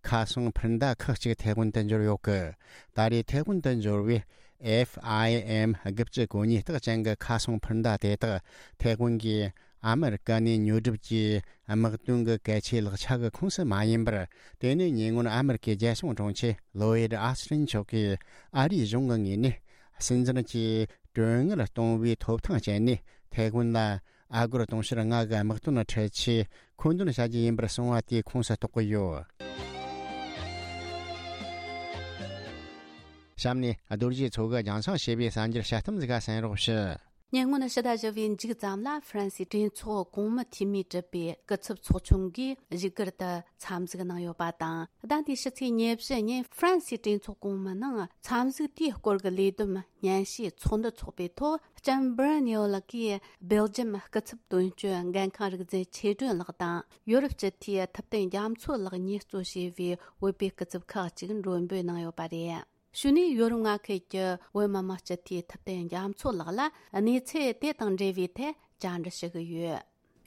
ཁ་སང་འཕུར་མདའ་ཁག་ཅིག་ཐའེ་ཝན་དུ་འབྱོར་ཡོད་གི། ད་རེས་ཐའེ་ཝན་དུ་འབྱོར་བའི་F I M དགུ་བཅུ་གོ་གཉིས་རྟགས་ཅན་གྱི་ཁ་སང་འཕུར་མདའ་དེ་དག་ཐའེ་ཝན་གྱིས་ཨ་མེ་རི་ཀ་ནས་ཉོ་སྒྲུབ་ཀྱིས་དམག་དོན་གྱི་གལ་ཆེའི་ལག་ཆ་གི་ཁོངས་སུ་མ་ཡིན་པར། དེ་ནི་ཉེ་སྔོན་ཨ་མེ་རི་ཀའི་རྒྱལ་སྲུང་དྲུང་ཆེ་ལོ་ཡིད་ཨ་སི་ཊིན་མཆོག་གིས་ཨ་རིའི་གཞུང་གི་ངོས་ནས་སྲིད་འཛིན་གྱིས་གྲོན་དངུལ་གཏོང་བའི་ཐོབ་ཐང་སྤྱད་ནས་ཐའེ་ཝན་ལ་ཨ་སྒོར་དུང་ཕྱུར་ལྔ་གི་དམག་དོན་འཕྲུལ་ཆས་མཁོ་འདོན་བྱ་རྒྱུ་ཡིན་པར་གསུངས་པ་དེའི་ཁོངས་སུ་གཏོགས་ཀྱི་ཡོད། གཤམ་ནས་རྡོ་རྗེ་མཚོ་གིས་རྒྱང་སྲིང་བྱས་པའི་གསར་འགྱུར་དཔྱད་གཏམ་ཟིག་ག་གསན་རོགས་ཞུ། ཉེ་སྔོན་ཕྱི་ཟླ་བཞི་པའི་མཇུག་ཙམ་ལ་ཧྥ་རན་སིའི་གྲོས་ཚོགས་གོང་མའི་འཐུས་མིས་གྲུབ་པའི་སྐུ་ཚབ་ཚོགས་ཆུང་གིས་བཞུགས་སྒར་དུ་འཚམས་གཟིགས་གནང་ཡོད་པ་དང་། ཟླ་འདིའི་ཕྱི་ཚེས་ཉེར་བཞི་ཉིན་ཧྥ་རན་སིའི་གྲོས་ཚོགས་གོང་མའི་ནང་འཚམས་གཟིགས་དེའི་སྐོར་གྱི་ལས་བསྡོམས་སྙན་ཞུའི་ཚོགས་འདུ་འཚོགས་པའི་ཐོག་ལྕམ་སྦུར་ནིའོ་ལགས་ཀྱིས་སྦེལ་ཇམ་སྐུ་ཚབ་དོན་གཅོད་འགན་ཁང་རིག་འཛིན་ཆོས་སྒྲོན་ལགས་དང་ཡོ་རོབ་སྤྱི་འཐུས་ཐུབ་བསྟན་རྒྱ་མཚོ་ལགས་གཉིས་གཙོ་བྱས་པའི་བོད་པའི་སྐུ་ཚབ་ཁག་ཅིག་མགྲོན་འབོད་གནང་ཡོད་པ་རེད། གཞུག་ནས་ཡོ་རོབ་མངའ་ཁུལ་གྱི་བོད་མི་མང་སྤྱི་འཐུས་ཐུབ་བསྟན་རྒྱ་མཚོ་ལགས་ལ་གནས་ཚུལ་དེ་དང་འབྲེལ་བའི་ཐད་བཅར་འདྲི་ཞུ་གི་ཡོད།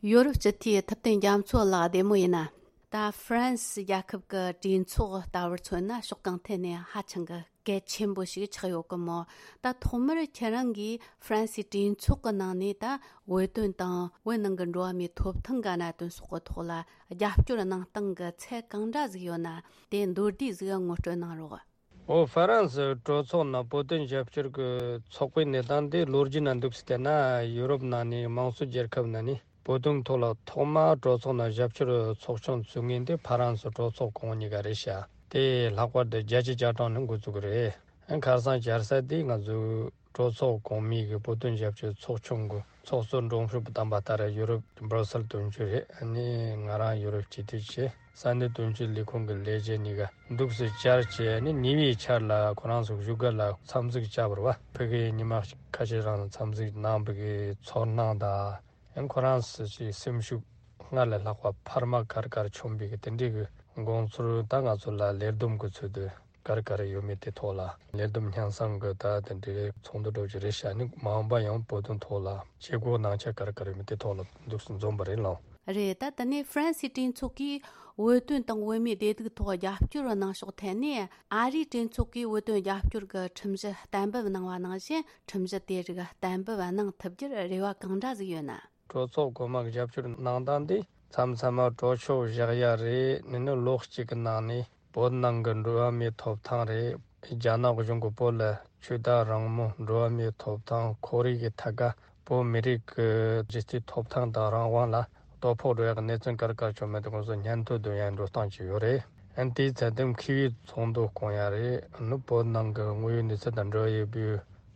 ཡོ་རོབ་སྤྱི་འཐུས་ཐུབ་བསྟན་རྒྱ་མཚོ་ལགས་བདེ་མོ་ཡིན་ན། ད་ཧྥ་རན་སི་རྒྱལ་ཁབ་ཀྱི་གྲོས་ཚོགས་ལྟ་བུར་མཚོན་ན་ཕྱོགས་གང་ཐད་ནས་ཧ་ཅང་གི་གལ་ཆེན་པོ་ཞིག་ཆགས་ཡོད་གི་མོད། ད་ཐོག་མར་ཁྱེད་རང་གིས་ཧྥ་རན་སིའི་གྲོས་ཚོགས་ཀྱི་ནང་ནས་ད་བོད་དོན་དང་བོད་ནང་གི་འགྲོ་བ་མིའི་ཐོབ་ཐང་གི་གནད་དོན་སོགས་ཀྱི་ཐོག་ལ་རྒྱབ་སྐྱོར་གནང་སྟངས་ཀྱི་ཚད་གང་འདྲ་ཟིག་ཡོད་ན། དེ་མདོར་བསྡུས་ཟིག་ངོ་སྤྲོད་གནང་རོགས། འོ། ཧྥ་རན་སི་གྲོས་ཚོགས་ནང་བོད་དོན་རྒྱབ་སྐྱོར་གྱི་ཚོགས་པའི་གནས་སྟངས་དེ་ལོ་རྒྱུས་ནང་འདུག་སེ་བལྟས་ན། ཡུ་རོབ་ནང་ནས་དམངས་གཙོ་རྒྱལ་ཁབ་ནང་ནས་བོད་དོན་ཐོག་ལ་ཐོག་མར་གྲོས་ཚོགས་ནང་རྒྱབ་སྐྱོར་ཚོགས་ཆུང་བཙུགས་མཁན་དེ་ཧྥ་རན་སི་གྲོས་ཚོགས་གོང་མ་གཉིས་ཀ་རེད་ཤག་དེ་ལྷག་པར་དུ་བརྒྱད་ཅུ་གྱ་གྲངས་ནས་འགོ་བཙུགས་རེད། ཁ་སང་བཅར་ས་དེ་ང་ཚོའི་ གྲོས་ཚོགས་གོང་མའི་གི་བོད་དོན་རྒྱབ་སྐྱོར་ཚོགས་ཆུང་གི་ཚོགས་གཙོ་འབྲོམ་ཕྲུག་བདམས་པ་ལྟར་ཡུ་རོབ་སྦྲུ་སེལ་དོན་གཅོད་རེད། ཨ་ནི་ང་རང་ཡུ་རོབ་སྤྱི་འཐུས་བྱས། ས་གནས་དོན་གཅོད་ལས་ཁུངས་ཀྱི་ལས་བྱེད་གཉིས་ཀ་འདུག་སེ་བཅར་བྱས་ནས་ཉེ་བའི་ཆར་ལ་ཁོ་རང་ཚོ་བཞུགས་སྒར་ལ་འཚམས་གཟིགས་བྱས་པ་རེད་བ། ཕ་གིར་ཉི་མ་ཁ་ཤས་རིང་འཚམས་གཟིགས་གནང་བའི་གི་ཚོར་སྣང་དང་། ཡང་ཁོ་རང་ཚོ་ཞིག་སེམས་ཤུགས་སྔར་ལས་ལྷག་པ་འཕར་མ་གར་གར་བྱུང་བའི་གི་དེ་འདྲའི་གི་དགོངས་ཚུལ་ད་ང་ཚོ་ལ་ལས་བསྡོམས་གི་ཚུལ་དུ་གར་གར་ཡོད་མེད་དེ་ཐོག་ལ། ལས་བསྡོམས་སྙན་སེང་གི་ད་དེ་འདྲའི་ཚོགས་འདུ་འགྲོ་རྒྱུ་རེད་ཤག་ནི་མ་འོངས་པ་ཡང་བོད་དོན་ཐོག་ལ་བྱེད་སྒོ་གནང་ཆ་གར་གར་ཡོད་མེད་དེ་ཐོག་ལ་འདུག་སེ་འཛོམས་པ་རེད་ལགས། རེད། ད་དེ་ནས་ཧྥ་རན་སིའི་གྲོས་ཚོགས་ཀྱིས་བོད་དོན་དང་བོད་མིའི་བདེ་སྡུག་ཐོག་རྒྱབ་སྐྱོར་གནང་ཕྱོགས་ཐད་ནས། ཨ་རིའི་གྲོས་ཚོགས་ཀྱིས་བོད་དོན་རྒྱབ་སྐྱོར་གྱི་ཁྲིམས་གཞི་གཏན་འབེབས་གནང་བ་ནང་བཞིན། ཁྲིམས་གཞི་དེ་རིགས་གཏན་འབེབས་གནང་ཐུབ་རྒྱུར་རེ་བ་གང་འདྲ་ཟིག་ཡོད་ན། གྲོས་ཚོགས་གོང་མ་གི་རྒྱབ་སྐྱོར་གནང་སྟངས་འདི་མཚམས་མཚམས་མ་གྲོས་ཆོད་བཞག་ཡ་རེད། ནི་ནི་ལོ་གཅིག་གི་ནང་ནས་བོད་ནང་གི་འགྲོ་བ་མིའི་ཐོབ་ཐང་རེད། རྒྱ་ནག་གཞུང་གིས་བོད་ལ་ཆོས་དད་རང་མོས། འགྲོ་བ་མིའི་ཐོབ་ཐང་། ཁོར་ཡུག་གི་ཐད་ཀ་བོད་མི་རིགས་ཀྱི་གཞི་རྩའི་ཐོབ་ཐང་དང་རང་དབང་ལ་དོ་ཕོག་འགྲོ་ཡག་གི་གནས་ཚུལ་ག་རེ་ག་རེ་བྱུང་མེད་དེ་ཁོང་ཚོ་སྙན་ཐོ་འདོན་ཡག་འགྲོ་སྟངས་ཅིག་ཡོད་རེད། ཨན་དེའི་ཚད་ལྡན་མཁས་པའི་ཚོགས་འདུ་བསྐོང་ཡག་རེད། ནི་བོད་ནང་གི་དངོས་ཡོད་གནས་ཚུལ་དང་འབྲེལ་བ་ཡོད་པའི་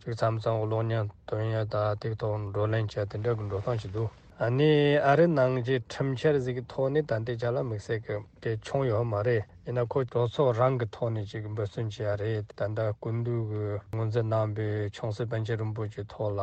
ཅིག་མཚམས་མཚམས་གློག་བརྙན་སྟོན་ཡག་དང་དེའི་ཐོག་བགྲོ་གླེང་བྱས་དེ་འདྲ་གི་འགྲོ་སྟངས་ཅིག་འདུག་ཨ་ནི་ཨ་རི་ནང་གི་ཁྲིམས་འཆར་ཟིག་གི་ཐོག་ནས་ད་ལྟའི་ཆ་ལ་དམིགས་བསལ་གྱི་གལ་ཆུང་ཡོད་མ་རེད། ཡིན་ན་ཁོ་གྲོས་ཚོགས་རང་གི་ཐོག་ནས་ཅིག་འབད་བརྩོན་བྱེད་ཡ་རེད། ད་ལྟ་སྐུ་མདུན་གྱིས་ངོས་འཛིན་གནང་པའི་ཆུང་སྲིད་པཎ་ཆེན་རིན་པོ་ཆེའི་ཐོག་ལ་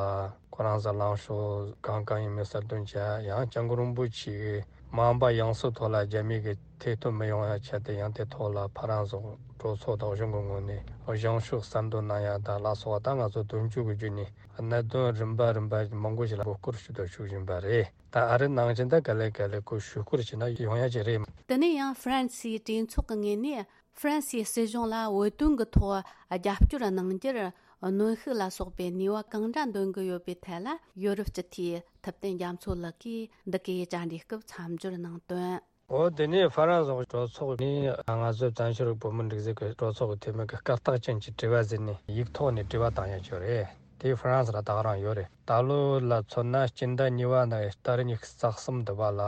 ཁོ་རང་ཚོ་ལངས་ཕྱོགས་གང་གང་ཡིན་མིན་གསལ་སྟོན་བྱེད་ཡ། ཡང་སྐྱབས་མགོན་རིན་པོ་ཆེ་གིས་མ་འོངས་པ་ཡང་སྲིད་ཐོག་ལ་རྒྱ་མི་གི་ཐེ་གཏོགས་མི་ཡོང་ཡ་ཆེད་དུ་ཡང་དེ་ཐོག་ལ་ཕ་རན་སི་གྲོས་ཚོགས་དང་གཞུང་གི་ངོས་ནས་བཞེངས་ཕྱོགས་གསལ་འདོན་གནང་ཡ་དང་ལ་སོགས་པ་ད་ང་ཚོ་དོན་གཅོད་ཀྱི་བརྒྱུད་ནས། གནད་དོན་རིམ་པ་རིམ་པ་མང་པོ་ཞིག་ལ་མགོ་སྐོར་ཞུ་དང་ཞུ་བཞིན་པ་རེད། ད་ཨ་རི་ནང་བཞིན་ད་ག་ལེ་ག་ལེ་ཁོ་ཞུ་སྐོར་བྱས་ན་ཡོང་ཡ་ཅིག་རེད། དེ་ནས་ཡང་ཧྥ་རན་སིའི་གྲོས་ཚོགས་ཀྱི་ངོས་ནས་ཧྥ་རན་སིའི་སྲིད་གཞུང་ལ་བོད་དོན་གྱི་ཐོག་རྒྱབ་སྐྱོར་གནང་རྒྱུར་གནོན་ཤུགས་ལ་སོགས་པའི་ནུས་པ་གང་འདྲ་འདོན་གྱི་ཡོད་པའི་ཐད་ལ། ཡོ་རོབ་སྤྱི་འཐུས་ཐུབ་བསྟན་རྒྱ་མཚོ་ལགས་ཀྱིས་འདི་གའི་བཅར་འདྲིའི་སྐབས་མཚམས་སྦྱོར་གནང་དོན། འོ་དེ་ནས་ཧྥ་རན་སི་གྲོས་ཚོགས་ནས་ང་ཚོའི་བཙན་བྱོལ་བོད་མི་སྒྲིག་འཛུགས་ཀྱི་གྲོས་ཚོགས་ཀྱི་འཐུས་མི་གི་སྐད་གྲགས་ཅན་གྱི་དྲི་བ་ཟེར་ནས་ཡིག་ཐོག་ནས་དྲི་བ་བཏང་ཡ་ཅིག་ཡོད་རེད། དེ་ཧྥ་རན་སི་ལ་ད་ག་རང་ཡོད་རེད། ད་ལོ་ལ་མཚོན་ན་སྤྱི་ཟླ་གཉིས་པ་ནས་ཟླ་ཉི་ཤུ་རྩ་གསུམ་འདི་བ་ལ་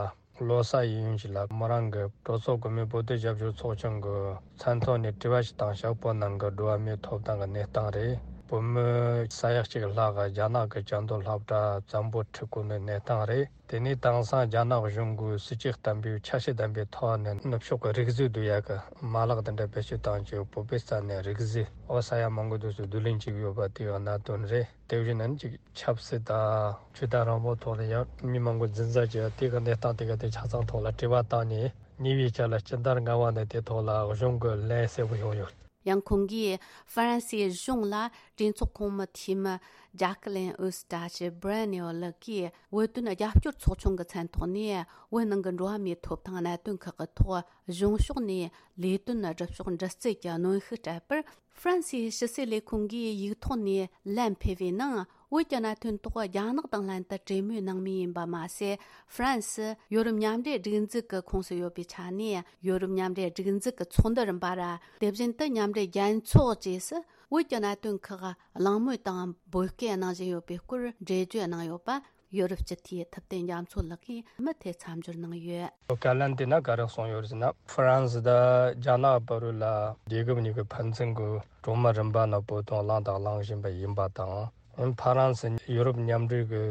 ལོ་གསར་ཡིན་ཡུན་ཞིག་ལ་མོ་རང་གི་གྲོས་ཚོགས་གོང་མའི་བོད་དོན་རྒྱབ་སྐྱོར་ཚོགས་ཆུང་གི་མཚན་ཐོག་ནས་དྲི་བ་ཞིག་བཏང་ཤག་བོད་ནང་གི་འགྲོ་བ་མིའི་ཐོབ་ཐང་གི་གནས་སྟངས་རེད། བོད་མི་ས་ཡ་གཅིག་ལྷག་གི་རྒྱ་ནག་གི་བཅའ་སྡོད་སློབ་གྲྭ་བཙན་པོ་ཁྲིད་དགོས་ནི་གནས་སྟངས་རེད། དེ་ནས་དེང་སང་རྒྱ་ནག་གཞུང་གིས་སྲིད་ཇུས་བརྟན་པོའི་འཆར་གཞི་ལྡན་པའི་ཐོག་ནས་ནུབ་ཕྱོགས་ཀྱི་རིག་གཞུང་བསྡུ་ཡག་གི་མ་ལག་དེ་འདྲ་བེད་སྤྱོད་བཏང་རྗེས་བོད་པའི་ས་ནས་རིག་གཞུང་འོ་ས་ཡ་མང་པོ་དུས་སུ་བསྡུ་ལེན་བྱེད་ཀྱི་ཡོད་པ་དེའི་གནད་དོན་རེད། དེ་བཞིན་ནི་ཅིག་ཆབ་སྲིད་དང་ཆོས་དད་རང་དབང་ཐོག་ནས་ཡང་མི་མང་པོ་འཛིན་བཟུང་བྱས་དེ་གི་གནས་སྟངས་དེ་ག་དེ་ཆ་ཚང་ཐོག་ལ་དྲི་བ་བཏང་ནས་ཉེ་བའི་ཆར་ལ་སྤྱི་ཟླ་ལྔ་པ་ནས་དེ་ཐོག་ལ་གཞུང་གི་ལན་གསལ་པོ་ཡོང་ཡོད། ཡང་ཁོང་གིས་ཧྥ་རན་སིའི་གཞུང་ལ་གྲོས་ཚོགས་གོང་མའི་འཐུས་མི་ཇཱ་ཀི་ལིན་ཨུ་སི་ཏྲ་ཆི་སྦྲ་ནེ་ཨོ་ལགས་ཀྱིས་བོད་དོན་རྒྱབ་སྐྱོར་ཚོགས་ཆུང་གི་མཚན་ཐོག་ནས་བོད་ནང་གི་འགྲོ་བ་མིའི་ཐོབ་ཐང་གནད་དོན་ཁག་གི་ཐོག་གཞུང་ཕྱོགས་ནས་ལས་དོན་སྒྲུབ་ཕྱོགས་འདྲི་རྩད་ཀྱི་གནོན་ཤུགས་སྤྲད་པར། ཧྥ་རན་སིའི་ཕྱི་སྲིད་ལས་ཁུངས་ཀྱིས་ཡིག་ཐོག་ནས་ལན་ཕུལ་བའི་ནང་། བོད་ཀྱི་གནད་དོན་ཐོག་རྒྱ་ནག་དང་ལྷན་དུ་གྲོས་མོལ་གནང་མུས་ཡིན་པ་མ་ཟད། ཧྥ་རན་སི་ཡོ་རོབ་མཉམ་འབྲེལ་སྒྲིག་འཛུགས་ཀྱི་ཁོངས་སུ་ཡོད་པའི་ཆ་ནས། ཡོ་རོབ་མཉམ་འབྲེལ་སྒྲིག་འཛུགས་ཀྱི་ཚོགས་འདུ་རིམ་པ་ར། དེ་བཞིན་དུ་མཉམ་འབྲེལ་རྒྱལ་ཚོགས་བཅས་སུ་བོད་ཀྱི་གནད་དོན་ཁག་གླེང་མོལ་དང་འབོད་སྐུལ་གནང་བཞིན་ཡོད་པའི་སྐོར་འགྲེལ་བརྗོད་གནང་ཡོད་པ། ཡོ་རོབ་སྤྱི་འཐུས་ཐུབ་བསྟན་རྒྱ་མཚོ་ལགས་ཀྱིས་མུ་མཐུད་མཚམས་སྦྱོར་གནང་ཡོད། བཀའ་ལན་དེ་ན་ག་རེ་གསུངས་ཡོད་ཟེར་ན། ཧྥ་རན་སི་དང་རྒྱ་ནག་བར་ལ་རྒྱལ་ཁབ་གཉིས་ཀྱི་ཕན་ཚུན་གྱི་གྲོས་མོལ་རིམ་པ་ནང་བོད་དོན་གླེང་དང་གླེང་བཞིན་པ་ཡིན་པ་དང་། ཧྥ་རན་སི་ཡུ་རོབ་མཉམ་འབྲེལ་གྱི་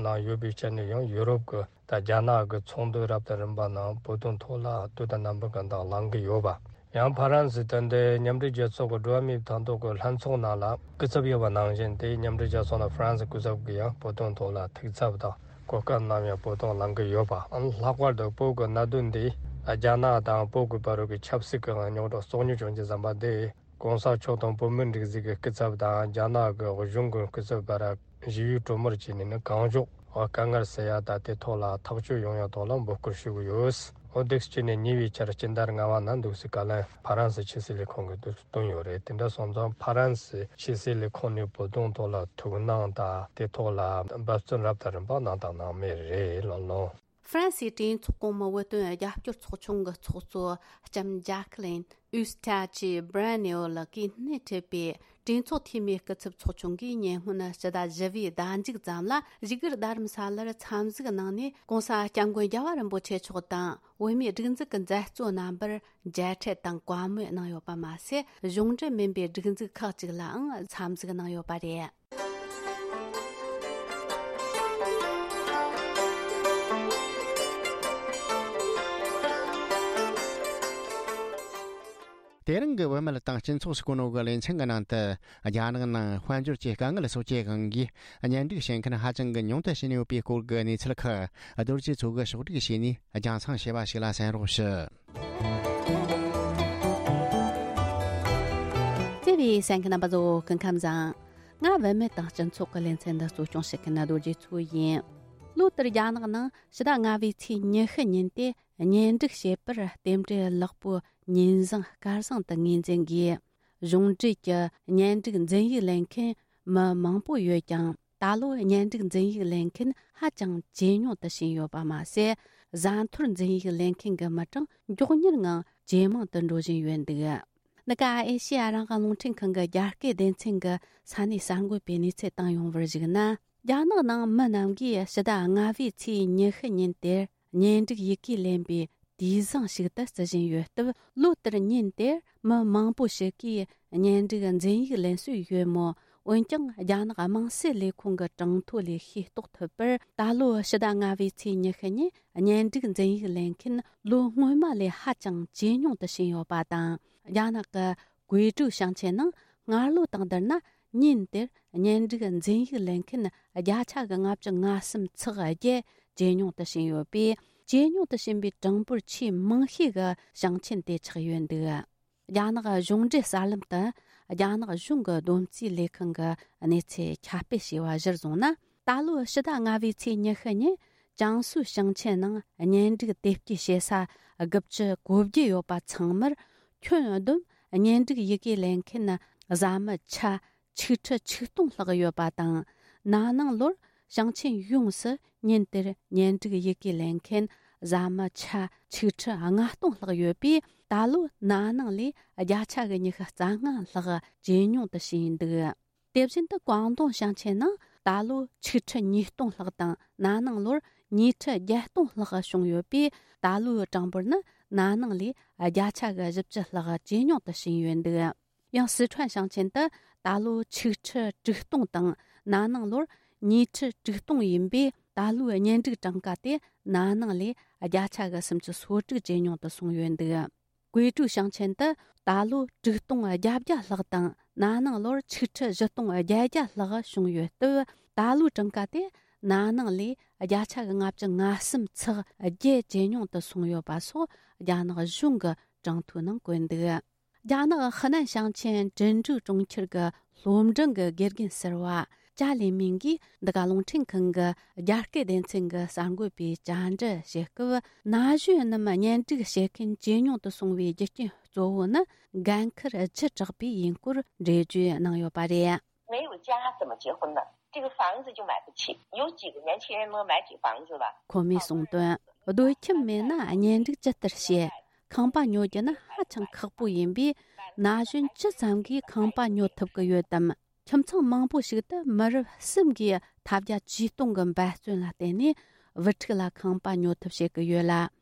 ནང་ཡོད་པའི་ཆ་ནས་ཡང་ཡུ་རོབ་ཀྱི་ད་རྒྱ་ནག་གི་ཚོགས་འདུ་རབ་དང་རིམ་པ་ནང་བོད་དོན་ཐོག་ལ་དུས་དང་རྣམ་པ་གང་དང་གླེང་གི་ཡོད་པ། ཡང་ཕ་རན་སི་དེ་འདྲའི་མཉམ་འབྲེལ་རྒྱལ་ཚོགས་ཀྱི་འགྲོ་བ་མིའི་ཐང་ཐོག་གི་ལྷན་ཚོགས་ནང་ལ་སྐུ་ཚབ་ཡོད་པ་ནང་བཞིན་དེའི་མཉམ་འབྲེལ་རྒྱལ་ཚོགས་ནང་ཕ་རན་སི་སྐུ་ཚབ་ཀྱིས་ཡང་བོད་དོན་ཐོག་ལ་ཐུགས་འཚབ་དང་གོ་སྐབས་གནང་ཡང་བོད་དོན་གླེང་གི་ཡོད་པ། ལྷག་པར་དུ་བོད་ཀྱི་གནད་དོན་འདི་རྒྱ་ནག་དང་བོད་ཀྱི་བར་གྱི་ཆབ་སྲིད་ཀྱི་རྙོག་དྲ་གཙོ་གཉེར་བྱུང་རྒྱུ་ཙམ་པ་འདི། གོང་ས་མཆོག་དང་བོད་མིའི་སྒྲིག་འཛུགས་ཀྱི་སྐུ་ཚབ་དང་རྒྱ་ནག་གི་གཞུང་གི་སྐུ་ཚབ་བར་ཞི་བའི་གྲོས་མོལ་བྱས་ནས་ནི་གང་མགྱོགས་དཀའ་ངལ་སེལ་ཡ་དང་དེ་ཐོག་ལ་ཐག་གཅོད་ཡོང་ཡ་ཐོག་ལ་འབོད་སྐུལ་ཞུ་གི་ཡོད། འོ་འདུག་སེ་བྱས་ནས་ཉེ་བའི་ཆར་སྤྱི་ཟླ་ལྔ་པ་ནང་འདུག་སེ་བཀའ་ལན་ཕ་རན་སི་ཕྱི་སྲིད་ལས་ཁུངས་ཀྱིས་འདུག་སེ་བཏོན་ཡོད་རེད། དེ་འདྲ་སོང་ཙང་ཕ་རན་སི་ཕྱི་སྲིད་ལས་ཁུངས་ནས་བོད་དོན་ཐོག་ལ་ཐུགས་སྣང་དང་དེ་ཐོག་ལ་འབད་བརྩོན་རབ་དང་རིམ་པ་གནང་དང་གནང་མུས་རེད། ལགས་ལགས། ཧྥ་རན་སིའི་གྲོས་ཚོགས་གོང་མའི་བོད་དོན་རྒྱབ་སྐྱོར་ཚོགས་ཆུང་གི་ཚོགས་གཙོ་ལྕམ་ཇཱ་ཁི་ལིན་ཨུ་སི་ཐ་ཆི་སྦྲ་ནེ་ཨོ་ལགས་ཀྱིས་སྣེ་ཁྲིད་པའི་གྲོས་ཚོགས་འཐུས་མིའི་སྐུ་ཚབ་ཚོགས་ཆུང་གིས་ཉེ་སྔོན་ཕྱི་ཟླ་བཞི་པའི་ཟླ་མཇུག་ཙམ་ལ་བཞུགས་སྒར་རྡ་རམ་ས་ལར་འཚམས་གཟིགས་གནང་ནས། གོང་ས་སྐྱབས་མགོན་རྒྱལ་བ་རིན་པོ་ཆེ་མཆོག་དང་བོད་མིའི་སྒྲིག་འཛུགས་ཀྱི་མཛད་གཙོ་རྣམ་པར་མཇལ་འཕྲད་དང་བཀའ་མོལ་གནང་ཡོད་པ་མ་ཟད། གཞུང་འབྲེལ་མིན་པའི་སྒྲིག་འཛུགས་ཁག་ཅིག་ལའང་འཚམས་གཟིགས་གནང་ཡོད་པ་རེད། དེ་རིང་གི་བུད་མེད་དང་སྤྱི་ཚོགས་སུ་གོ་ནོ་གི་ལེ་ཚན་གྱི་ནང་དུ། རྒྱ་ནག་ནང་དཔལ་འབྱོར་གྱི་དཀའ་ངལ་སོགས་ཀྱི་དབང་གིས་གཉེན་སྒྲིག་བྱེད་མཁན་ཧ་ཅང་གི་ཉུང་དུ་ཕྱིན་ཡོད་པའི་སྐོར་གྱི་གནས་ཚུལ་ཁག་རྡོ་རྗེ་མཚོ་གིས་ཕྱོགས་སྒྲིག་བྱས་ནས་རྒྱང་སྲིང་བྱས་པ་ཞིག་ལ་གསན་རོགས་ཞུ། བརྩེ་བའི་གསན་མཁན་རྣམ་པ་ཚོ། སྐུ་ཁམས་བཟང་། ང་བུད་མེད་དང་སྤྱི་ཚོགས་ཀྱི་ལེ་ཚན་འདི་གཙོ་སྐྱོང་བྱེད་མཁན་རྡོ་རྗེ་མཚོ་ཡིན། ལོ་ལྟར་རྒྱ་ནག་ནང་ཕྱི་ཟླ་ལྔ་པའི་ཚེས་ཉི་ཤུ་ཉིན་དེ། གཉེན་སྒྲིག་བྱེད་པར་རྟེན་འབྲེལ་ལེགས་པོ་ཉིན་བཟང་སྐར་བཟང་དུ་ངོས་འཛིན་དགོས། གཞུང་འབྲེལ་གྱི་གཉེན་སྒྲིག་འཛིན་ཡིག་ལེན་མཁན་མི་མང་པོ་ཡོད་ཀྱང་། ད་ལོ་གཉེན་སྒྲིག་འཛིན་ཡིག་ལེན་མཁན་ཧ་ཅང་ཇེ་ཉུང་དུ་ཕྱིན་ཡོད་པ་མ་ཟད། བཟའ་འཐོར་འཛིན་ཡིག་ལེན་མཁན་གྱི་མི་གྲངས་མགྱོགས་མྱུར་ངང་ཇེ་མང་དུ་འགྲོ་བཞིན་ཡོད་འདུག། འདི་ག་ཨེ་ཤེ་ཡ་རང་དབང་རླུང་འཕྲིན་ཁང་གི་རྒྱ་སྐད་སྡེ་ཚན་གྱི་ས་གནས་གསར་འགོད་པས་གནས་ཚུལ་བཏང་ཡོང་བར་གཞིགས་ན། རྒྱ་ནག་ནང་མི་རྣམས་ཀྱིས་ཕྱི་ཟླ་ལྔ་པའི་ཚེས་ཉི་ཤུ་ཉིན་དེར་གཉེན་སྒྲིག་ཡི་གེ་ལེན་པའི་དུས་བཟང་ཞིག་ཏུ་བརྩི་བཞིན་ཡོད་སྟབས། ལོ་ལྟར་ཉིན་དེར་མི་མང་པོ་ཞིག་གིས་གཉེན་སྒྲིག་འཛིན་ཡིག་ལེན་སྲོལ་ཡོད་མོད། འོན་ཀྱང་། རྒྱ་ནག་དམངས་སྲིད་ལས་ཁུངས་ཀྱི་གྲངས་ཐོ་ལས་ཤེས་རྟོགས་ཐུབ་པར། ད་ལོ་ཕྱི་ཟླ་ལྔ་པའི་ཚེས་ཉི་ཤུ་ཉིན་གཉེན་སྒྲིག་འཛིན་ཡིག་ལེན་མཁན་ལོ་སྔོན་མ་ལས་ཧ་ཅང་ཇེ་ཉུང་དུ་ཕྱིན་ཡོད་པ་དང་། རྒྱ་ནག་གི་ཀུའེ་ཀྲུའུ་ཞིང་ཆེན་ནང་སྔར་ལོ་དང་བསྡུར་ན། ཉིན་དེར་གཉེན་སྒྲིག་འཛིན་ཡིག་ལེན་མཁན་བརྒྱ་ཆ་གི་ལྔ་བཅུ་ང་གསུམ་ཚེག་བརྒྱད་ཇེ་ཉུང་དུ་ཕྱིན་ཡོད་པས། ཇེ་ཉུང་དུ་ཕྱིན་པའི་གྲངས་འབོར་ཆེས་མང་ཤོས་ཀྱི་ཞིང་ཆེན་དེ་ཆགས་ཡོད་འདུག། རྒྱ་ནག་གཞུང་འབྲེལ་གསར་ལམ་དུ། རྒྱ་ནག་གཞུང་གི་བསྡོམས་རྩིས་ལས་ཁང་གི་གནས་ཚུལ་ཁྱབ་སྤེལ་བྱས་པ་གཞིར་བཟུང་ན། ད་ལོའི་ཕྱི་ཟླ་ལྔ་པའི་ཚེས་ཉི་ཤུ་ཉིན། ཅང་སུའུ་ཞིང་ཆེན་ནང་གཉེན་སྒྲིག་དེབ་སྐྱེལ་བྱེད་ས་དགུ་བཅུ་གོ་བརྒྱད་ཡོད་པ་ཚང་མར། ཁྱོན་བསྡོམས་གཉེན་སྒྲིག་ཡི་གེ་ལེན་མཁན་བཟའ་མི་ཆ་ཆིག་ཁྲི་ཆིག་སྟོང་ལྷག་ཡོད་པ་དང་། ན་ནིང་ལོར་ཞིང་ཆེན་ཡོངས་སུ་ཉིན་དེར་གཉེན་སྒྲིག་ཡི་གེ་ལེན་མཁན་བཟའ་མི་ཆ་ཆིག་ཁྲི་ལྔ་སྟོང་ལྷག་ཡོད་པས། ད་ལོ་ན་ནིང་ལས་བརྒྱ་ཆ་གི་ཉི་ཤུ་རྩ་ལྔ་ལྷག་ཇེ་ཉུང་དུ་ཕྱིན་འདུག། དེ་བཞིན་དུ་ཀོང་ཏུང་ཞིང་ཆེན་ནང་ད་ལོ་ཆིག་ཁྲི་ཉིས་སྟོང་ལྷག་དང་། ན་ནིང་ལོར་ཉིས་ཁྲི་བརྒྱད་སྟོང་ལྷག་བྱུང་ཡོད་པས། ད་ལོའི་གྲངས་འབོར་ནི་ན་ནིང་ལས་བརྒྱ་ཆ་གི་བཞི་བཅུ་ལྷག་ཇེ་ཉུང་དུ་ཕྱིན་ཡོད་འདུག། ཡང་སི་ཁྲོན་ཞིང་ཆེན་དུ་ད་ལོ་ཆིག་ཁྲི་དྲུག་སྟོང་དང་། ན་ནིང་ལོར་ཉིས་ཁྲི་དྲུག་སྟོང་ཡིན་པས། ད་ལོའི་གཉེན་སྒྲིག་གྲངས་ཀ་དེ་ན་ནིང་ལས་བརྒྱ་ཆ་གི་སུམ་ཅུ་སོ་དྲུག་ཇེ་ཉུང་དུ་སོང་ཡོད་འདུག། ཀུའེ་ཀྲུའུ་ཞིང་ཆེན་དུ་ད་ལོ་དྲུག་སྟོང་བརྒྱད་བརྒྱ་ལྷག་དང་། ན་ནིང་ལོར་ཆིག་ཁྲི་བཞི་སྟོང་བརྒྱད་བརྒྱ་ལྷག་བྱུང་ཡོད་སྟབས། ད་ལོའི་གྲངས་ཀ་དེ་ན་ནིང་ལས་བརྒྱ་ཆ་གི་ལྔ་བཅུ་ང་གསུམ་ཚེག་བརྒྱད་ཇེ་ཉུང་དུ་སོང་ཡོད་པ་སོགས་རྒྱ་ནག་གཞུང་གི་གྲངས་ཐོའི་ནང་བཀོད་འདུག། རྒྱ་ནག་ཧི་ནན་ཞིང་ཆེན་ཀྲིན་ཀྲུའུ་གྲོང་ཁྱེར་གྱི་སློབ་འབྲིང་གི་དགེ་རྒན་ཟུར་པ་ཅཱ་ལི་མིང་གིས་འདི་ག་རླུང་འཕྲིན་ཁང་གི་རྒྱ་སྐད་སྡེ་ཚན་གྱི་གསར་འགོད་པའི་བཅར་འདྲི་བྱེད་སྐབས། ན་གཞོན་རྣམས་གཉེན་སྒྲིག་བྱེད་མཁན་ཇེ་ཉུང་དུ་སོང་བའི་རྒྱུ་རྐྱེན་གཙོ་བོ་ནི་འགན་ཁུར་བརྒྱུད་དྲགས་པས་ཡིན་སྐོར་འགྲེལ་བརྗོད་གནང་ཡོད་པ་རེད། 没有家怎么结婚呢？这个房子就买不起，有几个年轻人能买起房子了？ ཁོ་མོས་གསུངས་དོན། སྡོད་ཁྱིམ་མེད་ན་གཉེན་སྒྲིག་ཇི་ལྟར་བྱེད། ཁང་པ་ཉོ་རྒྱུ་ནི་ཧ་ཅང་ཁག་པོ་ཡིན་པས། ན་གཞོན་ཇི་ཙམ་གྱིས་ཁང་པ་ཉོ་ཐུབ་ཀྱི་ཡོད་དམ། ཁྱིམ་ཚང་མང་པོ་ཞིག་ཏུ་མི་རབས་གསུམ་གྱིས་ཐབས་བརྒྱ་ཇུས་སྟོང་གི་འབད་བརྩོན་ལ་བརྟེན་ནས་བུ་ཕྲུག་ལ་ཁང་པ་ཉོ་ཐབས་བྱེད་ཀྱི་ཡོད་ལ།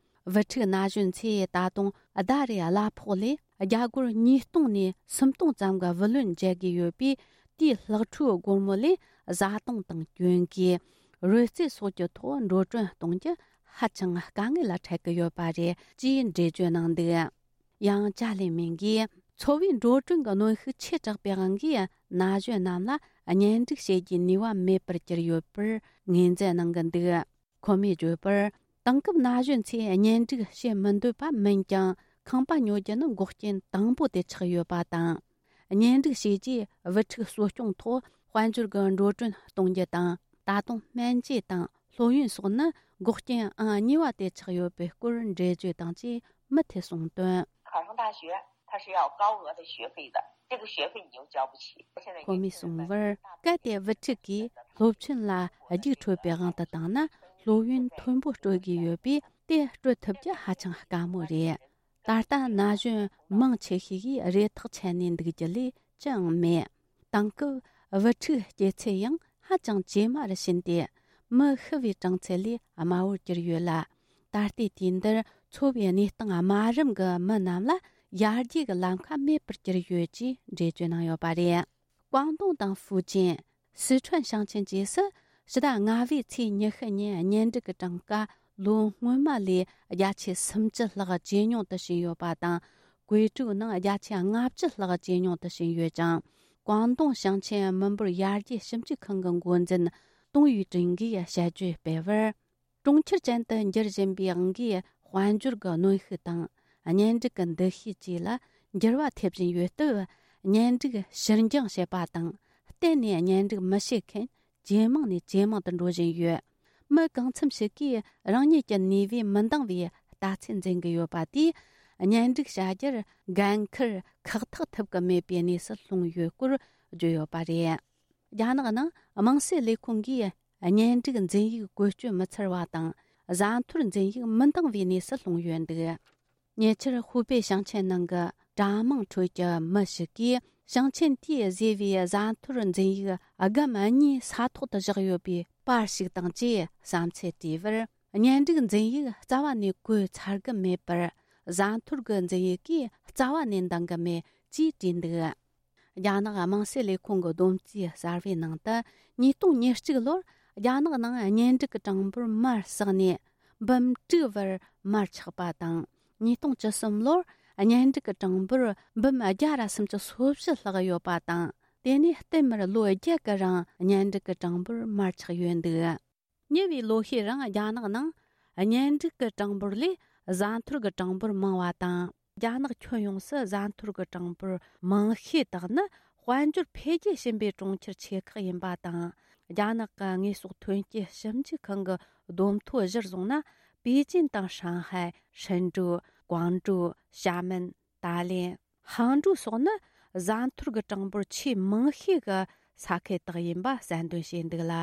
བུ་ཕྲུག་ན་གཞོན་ཚོས་ད་དུང་ཟླ་རེའི་གླ་ཕོགས་ལས་རྒྱ་སྒོར་ཉིས་སྟོང་ནས་སུམ་སྟོང་ཙམ་གྱི་བུ་ལོན་འཇལ་དགོས་ཡོད་པས། དེའི་ལྷག་འཕྲོའི་སྒོར་མོ་ལས་བཟའ་བཏུང་དང་གྱོན་གོས། རོལ་རྩེད་སོགས་ཀྱི་ཐོག་འགྲོ་གྲོན་གཏོང་རྒྱུ་ཧ་ཅང་དཀའ་ངལ་ལ་འཕྲད་ཀྱི་ཡོད་པ་རེད་ཅེས་འགྲེལ་བརྗོད་གནང་འདུག། ཡང་ཅཱ་ལི་མིང་གིས། འཚོ་བའི་འགྲོ་གྲོན་གྱི་གནོན་ཤུགས་ཆེ་དྲགས་པའི་དབང་གིས། ན་གཞོན་རྣམས་ལ་གཉེན་སྒྲིག་བྱེད་རྒྱུའི་ནུས་པ་མེད་པར་གྱུར་ཡོད་པར་ངོས་འཛིན་གནང་གི་འདུག། ཁོ་མོས་བརྗོད་པར། དེང་སྐབས་ན་གཞོན་ཚོས་གཉེན་སྒྲིག་བྱེད་མི་འདོད་པ་མིན་ཀྱང་། ཁང་པ་ཉོ་རྒྱུ་ནི་འགོག་རྐྱེན་དང་པོ་དེ་ཆགས་ཡོད་པ་དང་། གཉེན་སྒྲིག་བྱས་རྗེས་བུ་ཕྲུག་གསོ་སྐྱོང་ཐོག་དཔལ་འབྱོར་གྱི་འགྲོ་གྲོན་གཏོང་རྒྱུ་དང་། ད་དུང་སྨན་བཅོས་དང་སློབ་ཡོན་སོགས་ནི་འགོག་རྐྱེན་ཨང་གཉིས་པ་དེ་ཆགས་ཡོད་པའི་སྐོར་འགྲེལ་བརྗོད་དང་བཅས་མུ་མཐུད་གསུངས་དོན། 考上大学，他是要高额的学费的，这个学费你又交不起。现在年轻人 གོ་མིས་གསུངས་པར། གལ་ཏེ་བུ་ཕྲུག་གིས་སློབ་ཆེན་ལ་རྒྱུགས་འཕྲོད་པའི་དབང་དུ་བཏང་ན། སློབ་ཡོན་མཐོན་པོ་སྤྲོད་དགོས་ཡོད་པས། དེ་སྤྲོད་ཐུབ་རྒྱུ་ཧ་ཅང་དཀའ་མོ་རེད། ད་ལྟ་ན་གཞོན་མང་ཆེ་ཤོས་ཀྱིས་རེ་ཐག་ཆད་ནས་འདུག་རྒྱུ་ལས་ཅི་ཡང་མེད། དེང་སྐབས་བུ་ཕྲུག་སྐྱེ་ཚད་ཡང་ཧ་ཅང་ཇེ་དམའ་རུ་ཕྱིན་ཏེ། མི་ཤི་བའི་གྲངས་ཚད་ལས་དམའ་བོར་གྱུར་ཡོད་ལ། ད་ལྟའི་དུས་འདིར་འཚོ་བའི་གནས་སྟངས་དམའ་རིམ་གྱི་མི་རྣམས་ལ་ཡར་རྒྱས་ཀྱི་ལམ་ཁ་མེད་པར་གྱུར་ཡོད་ཅེས་འགྲེལ་བརྗོད་གནང་ཡོད་པ་རེད། ཀོང་ཏུང་དང་ཧྥུ་ཅན། སི་ཁྲོན་ཞིང་ཆེན་བཅས་སུ་ཕྱི་ཟླ་ལྔ་པའི་ཚེས་ཉི་ཤུ་ཉིན་གཉེན་སྒྲིག་གི་གྲངས་ཀ་ལོ་སྔོན་མ་ལས་བརྒྱ་ཆའི་སུམ་ཅུ་ལྷག་ཇེ་ཉུང་དུ་ཕྱིན་ཡོད་པ་དང་། ཀུའེ་ཀྲོའུ་ནང་བརྒྱ་ཆ་ལྔ་བཅུ་ལྷག་ཇེ་ཉུང་དུ་ཕྱིན་ཡོད་ཅིང་། ཀོང་ཏུང་ཞིང་ཆེན་མི་འབོར་ཡར་རྒྱས་ཞིབ་འཇུག་ཁང་གི་འགོ་འཛིན་ཏུང་ཡུས་ཀྲིན་གྱིས་དཔྱད་བརྗོད་སྤེལ་བར། གྲོང་ཁྱེར་ཅན་དུ་འགྱུར་བཞིན་པའི་དབང་གིས། དཔལ་འབྱོར་གྱི་གནོན་ཤུགས་དང་། གཉེན་སྒྲིག་གི་འདུ་ཤེས་བཅས་ལ་འགྱུར་བ་ཐེབས་བཞིན་ཡོད་སྟབས། གཉེན་སྒྲིག་ཕྱིར་འགྱངས་བྱེད་པ་དང་། གཏན་ནས་གཉེན་སྒྲིག་མི་བྱེད་མཁན་ཇེ་མང་ནས་ཇེ་མང་དུ་འགྲོ་བཞིན་ཡོད། མི་གང་འཚམ་ཞིག་གིས་རང་ཉིད་ཀྱི་ནུས་པས་མི་འདང་བའི་ལྟ་ཚུལ་འཛིན་གྱི་ཡོད་པ་དེས། གཉེན་སྒྲིག་བྱ་རྒྱུར་འགན་འཁུར་ཁག་ཐེག་ཐུབ་ཀྱི་མེད་པའི་གནས་སུ་ལྷུང་ཡོད་སྐོར་བརྗོད་ཡོད་པ་རེད། རྒྱ་ནག་ནང་དམངས་སྲིད་ལས་ཁུངས་ཀྱིས་གཉེན་སྒྲིག་འཛིན་ཡིག་བཀོལ་སྤྱོད་མི་འཚར་བ་དང་། བཟའ་འཐོར་འཛིན་ཡིག་མི་འདང་བའི་གནས་སུ་ལྷུང་ཡོད་འདུག་ཉེ་ཆར་ཧུའུ་པེ་ཞིང་ཆེན་ནང་གི་གྲྭ་མང་ཁྲོད་ཀྱི་མི་ཞིག་གིས། ཞིང་ཆེན་དེས་བཟོས་པའི་བཟའ་འཐོར་འཛིན་ཡིག་སྒམ་གཉིས་ས་ཐོག་ཏུ་བཞག་ཡོད་པའི་པར་ཞིག་དང་བཅས་བསམ་ཚུལ་བྲིས་པར། གཉེན་སྒྲིག་འཛིན་ཡིག་རྩ་བ་ནས་བཀོལ་ཚར་གི་མེད་པར། བཟའ་འཐོར་གྱི་འཛིན་ཡིག་གིས་རྩ་བ་ནས་འདང་གི་མེད་ཅེས་བྲིས་འདུག་རྒྱ་ནག་དམངས་སྲིད་ལས་ཁུངས་ཀྱི་བསྡོམས་རྩིས་གསར་བའི་ནང་དུ། ཉིས་སྟོང་ཉེར་གཅིག་ལོར་རྒྱ་ནག་ནང་གཉེན་སྒྲིག་གི་གྲངས་འབོར་མར་ཟགས་ནས་འབུམ་དྲུག་བར་མར་ཆག་པ་དང་། ཉིས་སྟོང་བཅུ་གསུམ་ལོར་གཉེན་སྒྲིག་གི་གྲངས་འབོར་འབུམ་བརྒྱ་ར་སུམ་ཅུ་སོ་བཞི་ལྷག་ཡོད་པ་དང་། དེ་ནས་བསྟུད་མར་ལོ་བརྒྱད་ཀྱི་རིང་གཉེན་སྒྲིག་གི་གྲངས་འབོར་མར་ཆག་ཡོད་འདུག་ཉེ་བའི་ལོ་ཤས་རིང་རྒྱ་ནག་ནང་གཉེན་སྒྲིག་གི་གྲངས་འབོར་ལས་བཟའ་འཐོར་གྱི་གྲངས་འབོར་མང་བ་དང་། རྒྱ་ནག་ཁྱོན་ཡོངས་སུ་བཟའ་འཐོར་གྱི་གྲངས་འབོར་མང་ཤོས་དག་ནི་དཔལ་འབྱོར་འཕེལ་རྒྱས་ཕྱིན་པའི་གྲོང་ཁྱེར་ཆེ་ཁག་ཡིན་པ་དང་། རྒྱ་ནག་གི་དངོས་ཟོག་ཐོན་སྐྱེད་ཞིབ་འཇུག་ཁང་གི་བསྡོམས་ཐོ་གཞིར་བཟུང་ན། པེ་ཅིན་དང་ཧྲང་ཧའེ། ཧྲིན་ཀྲུའུ། ཀོང་ཀྲོའུ། ཞྭ་མེན། ཏཱ་ལེན། ཧང་ཀྲོའུ་སོགས་ནི་བཟའ་འཐོར་གྱི་གྲངས་འབོར་ཆེས་མང་ཤོས་ཀྱི་ས་ཁུལ་དག་ཡིན་པ་གསལ་འདོན་བྱས་འདུག་ལ།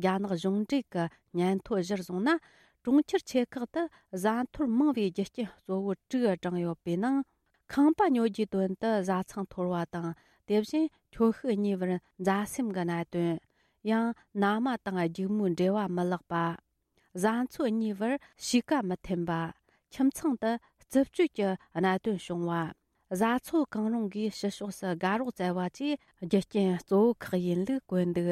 རྒྱ་ནག་གཞུང་འབྲེལ་གྱི་སྙན་ཐོ་གཞིར་བཟུང་ན། གྲོང་ཁྱེར་ཆེ་ཁག་ཏུ་བཟའ་འཐོར་མང་བའི་རྒྱུ་རྐྱེན་གཙོ་བོ་དྲུག་བགྲངས་ཡོད་པའི་ནང་། ཁང་པ་ཉོ་རྒྱུའི་དོན་དུ་བཟའ་ཚང་འཐོར་བ་དང་། དེ་བཞིན་ཁྱོ་ཤུག་གཉིས་བར་མཛའ་སེམས་ཀྱི་གནད་དོན། ཡང་ན་མ་དང་སྒྱུག་མོའི་འབྲེལ་བ་མི་ལེགས་པ། བཟའ་ཚོ་གཉིས་བར་གཤིས་ཀ་མི་མཐུན་པ། ཁྱིམ་ཚང་དུ་རྩུབ་སྤྱོད་ཀྱི་གནད་དོན་བྱུང་བ། བཟའ་ཚོ་གང་རུང་གིས་ཕྱི་ཕྱོགས་སུ་དགའ་རོགས་བཙལ་བ་བཅས་རྒྱུ་རྐྱེན་གཙོ་བོ་ཁག་ཡིན་ལུགས་བཀོད་འདུག་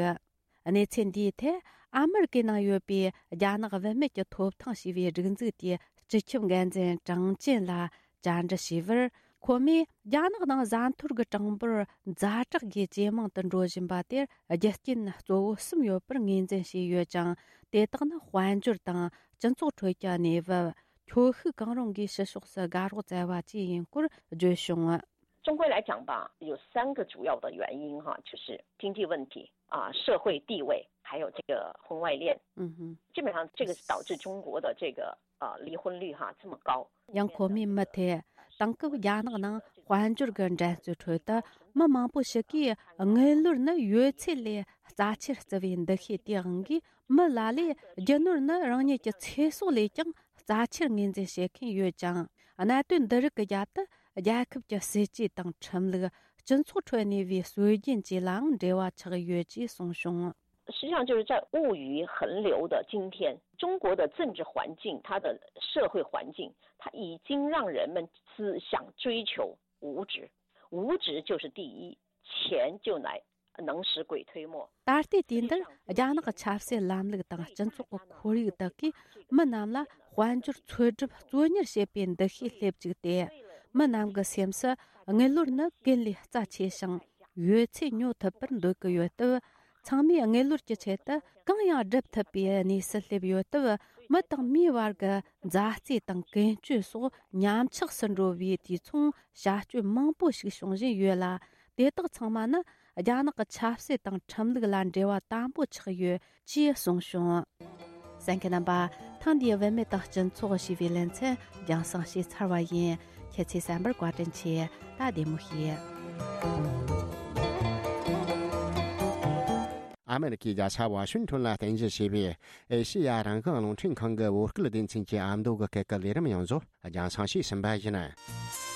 གནས་ཚུལ་འདིའི་ཐད་ཨ་མེ་རི་ཀའི་ནང་ཡོད་པའི་རྒྱ་ནག་བུད་མེད་ཀྱི་ཐོབ་ཐང་ཞེས་པའི་སྒྲིག་འཛུགས་དེའི་སྤྱི་ཁྱབ་འགན་འཛིན་ཀྲང་ཅན་ལ་བཅར་འདྲི་བྱས་པར། ཁོ་མོས་རྒྱ་ནག་ནང་བཟའ་འཐོར་གྱི་གྲངས་འབོར་ཛ་དྲག་གིས་ཇེ་མང་དུ་འགྲོ་བཞིན་པ་དེར་རྒྱུ་རྐྱེན་གཙོ་བོ་གསུམ་ཡོད་པར་ངོས་འཛིན་བྱས་ཡོད་ཅིང་། དེ་དག་ནི་དཔལ་འབྱོར་དང་སྤྱི་ཚོགས་ཁྲོད་ཀྱི་གནས་བབ། ཁྱོ་ཤུག་གང་རུང་གིས་ཕྱི་ཕྱོགས་སུ་དགའ་རོགས་བཙལ་བ་བཅས་ཡིན་སྐོར་བརྗོད་བྱུང་། 中国来讲吧，有三个主要的原因哈，就是经济问题啊、社会地位，还有这个婚外恋。嗯哼，基本上这个是导致中国的这个呃离婚率哈这么高。 ཡང་ཁོ་མོས་མུ་མཐུད་དེང་སྐབས་རྒྱ་ནག་ནང་དཔལ་འབྱོར་གྱི་འགྲན་རྩོད་ཁྲོད་དུ་མི་མང་པོ་ཞིག་གིས་དངུལ་ལོར་ནི་ཡོད་ཚད་ལས་རྩ་ཆེར་བརྩི་བའི་འདུ་ཤེས་དེའི་དབང་གིས། མི་ལ་ལས་རྒྱུ་ནོར་ནི་རང་ཉིད་ཀྱི་ཚེ་སྲོག་ལས་ཀྱང་རྩ་ཆེར་ངོས་འཛིན་བྱེད་མཁན་ཡོད་ཅིང་། གནད་དོན་འདི་རིགས་ཀྱི་རྒྱབ་ཏུ་རྒྱལ་ཁབ་ཀྱི་སྲིད་ཇུས་དང་ཁྲིམས་ལུགས། སྤྱི་ཚོགས་ཁྲོད་གནས་པའི་སྲོལ་རྒྱུན་བཅས་ལའང་འབྲེལ་བ་ཆགས་ཡོད་ཅེས་གསུངས་བྱུང་། 实际上就是在物欲横流的今天，中国的政治环境，它的社会环境，它已经让人们只想追求物质，物质就是第一，钱就来能使鬼推磨。 ད་ལྟའི་དུས་འདིར་རྒྱ་ནག་གི་ཆབ་སྲིད་ལམ་ལུགས་དང་སྤྱི་ཚོགས་ཀྱི་ཁོར་ཡུག་དག་གིས་མི་རྣམས་ལ་དཔལ་འབྱོར་འཚོལ་སྒྲུབ་གཙོ་གཉེར་བྱེད་པའི་འདུ་ཤེས་སླེབས་བཅུག་སྟེ། མི་རྣམས་ཀྱི་སེམས་སུ་དངུལ་ལོར་ནི་ཀུན་ལས་རྩ་ཆེ་ཞིང་། ཡོད་ཚད་ཉོ་ཐུབ་པར་འདོད་ཀྱི་ཡོད་སྟབས། ཚང་མས་དངུལ་ལོར་གྱི་ཆེད་དུ་གང་ཡང་སྒྲུབ་ཐུབ་པའི་གནས་སུ་སླེབས་ཡོད་སྟབས། མི་དང་མིའི་བར་གྱི་མཛའ་བརྩེ་དང་ཀུན་སྤྱོད་སོགས་ཉམས་ཆག་སུ་འགྲོ་བའི་དུས་མཚུངས་བྱ་སྤྱོད་མང་པོ་ཞིག་བྱུང་བཞིན་ཡོད་ལ། དེ་དག་ཚང་མ་ནི་རྒྱ་ནག་གི་ཆབ་སྲིད་དང་ཁྲིམས་ལུགས་ལ་འབྲེལ་བ་དམ་པོ་ཆགས་ཡོད་ཅེས་གསུངས་བྱུང་། གསན་མཁན་རྣམ་པ། ཐེངས་འདིའི་བུད་མེད་དང་སྤྱི་ཚོགས་ཞེས་པའི་ལེ་ཚན་རྒྱང་སྲིང་བྱས་ཚར་བ་ཡིན། ཁྱེད་ཚོས་གསན་པར་བཀའ་དྲིན་ཆེ། ད་བདེ་མོ་བྱོས། ཨ་མེ་རི་ཁའི་རྒྱལ་ས་ཝ་ཤིང་ཊོན་ལ་རྟེན་གཞི་བྱས་པའི་ཨེ་ཤེ་ཡ་རང་དབང་རླུང་འཕྲིན་ཁང་གི་བོད་སྐད་སྡེ་ཚན་གྱི་ཨ་མདོ་གི་སྐད་ཀྱི་ལས་རིམ་ཡོངས་རྫོགས་རྒྱང་སྲིང་བྱས་ཟིན་པ་ཡིན།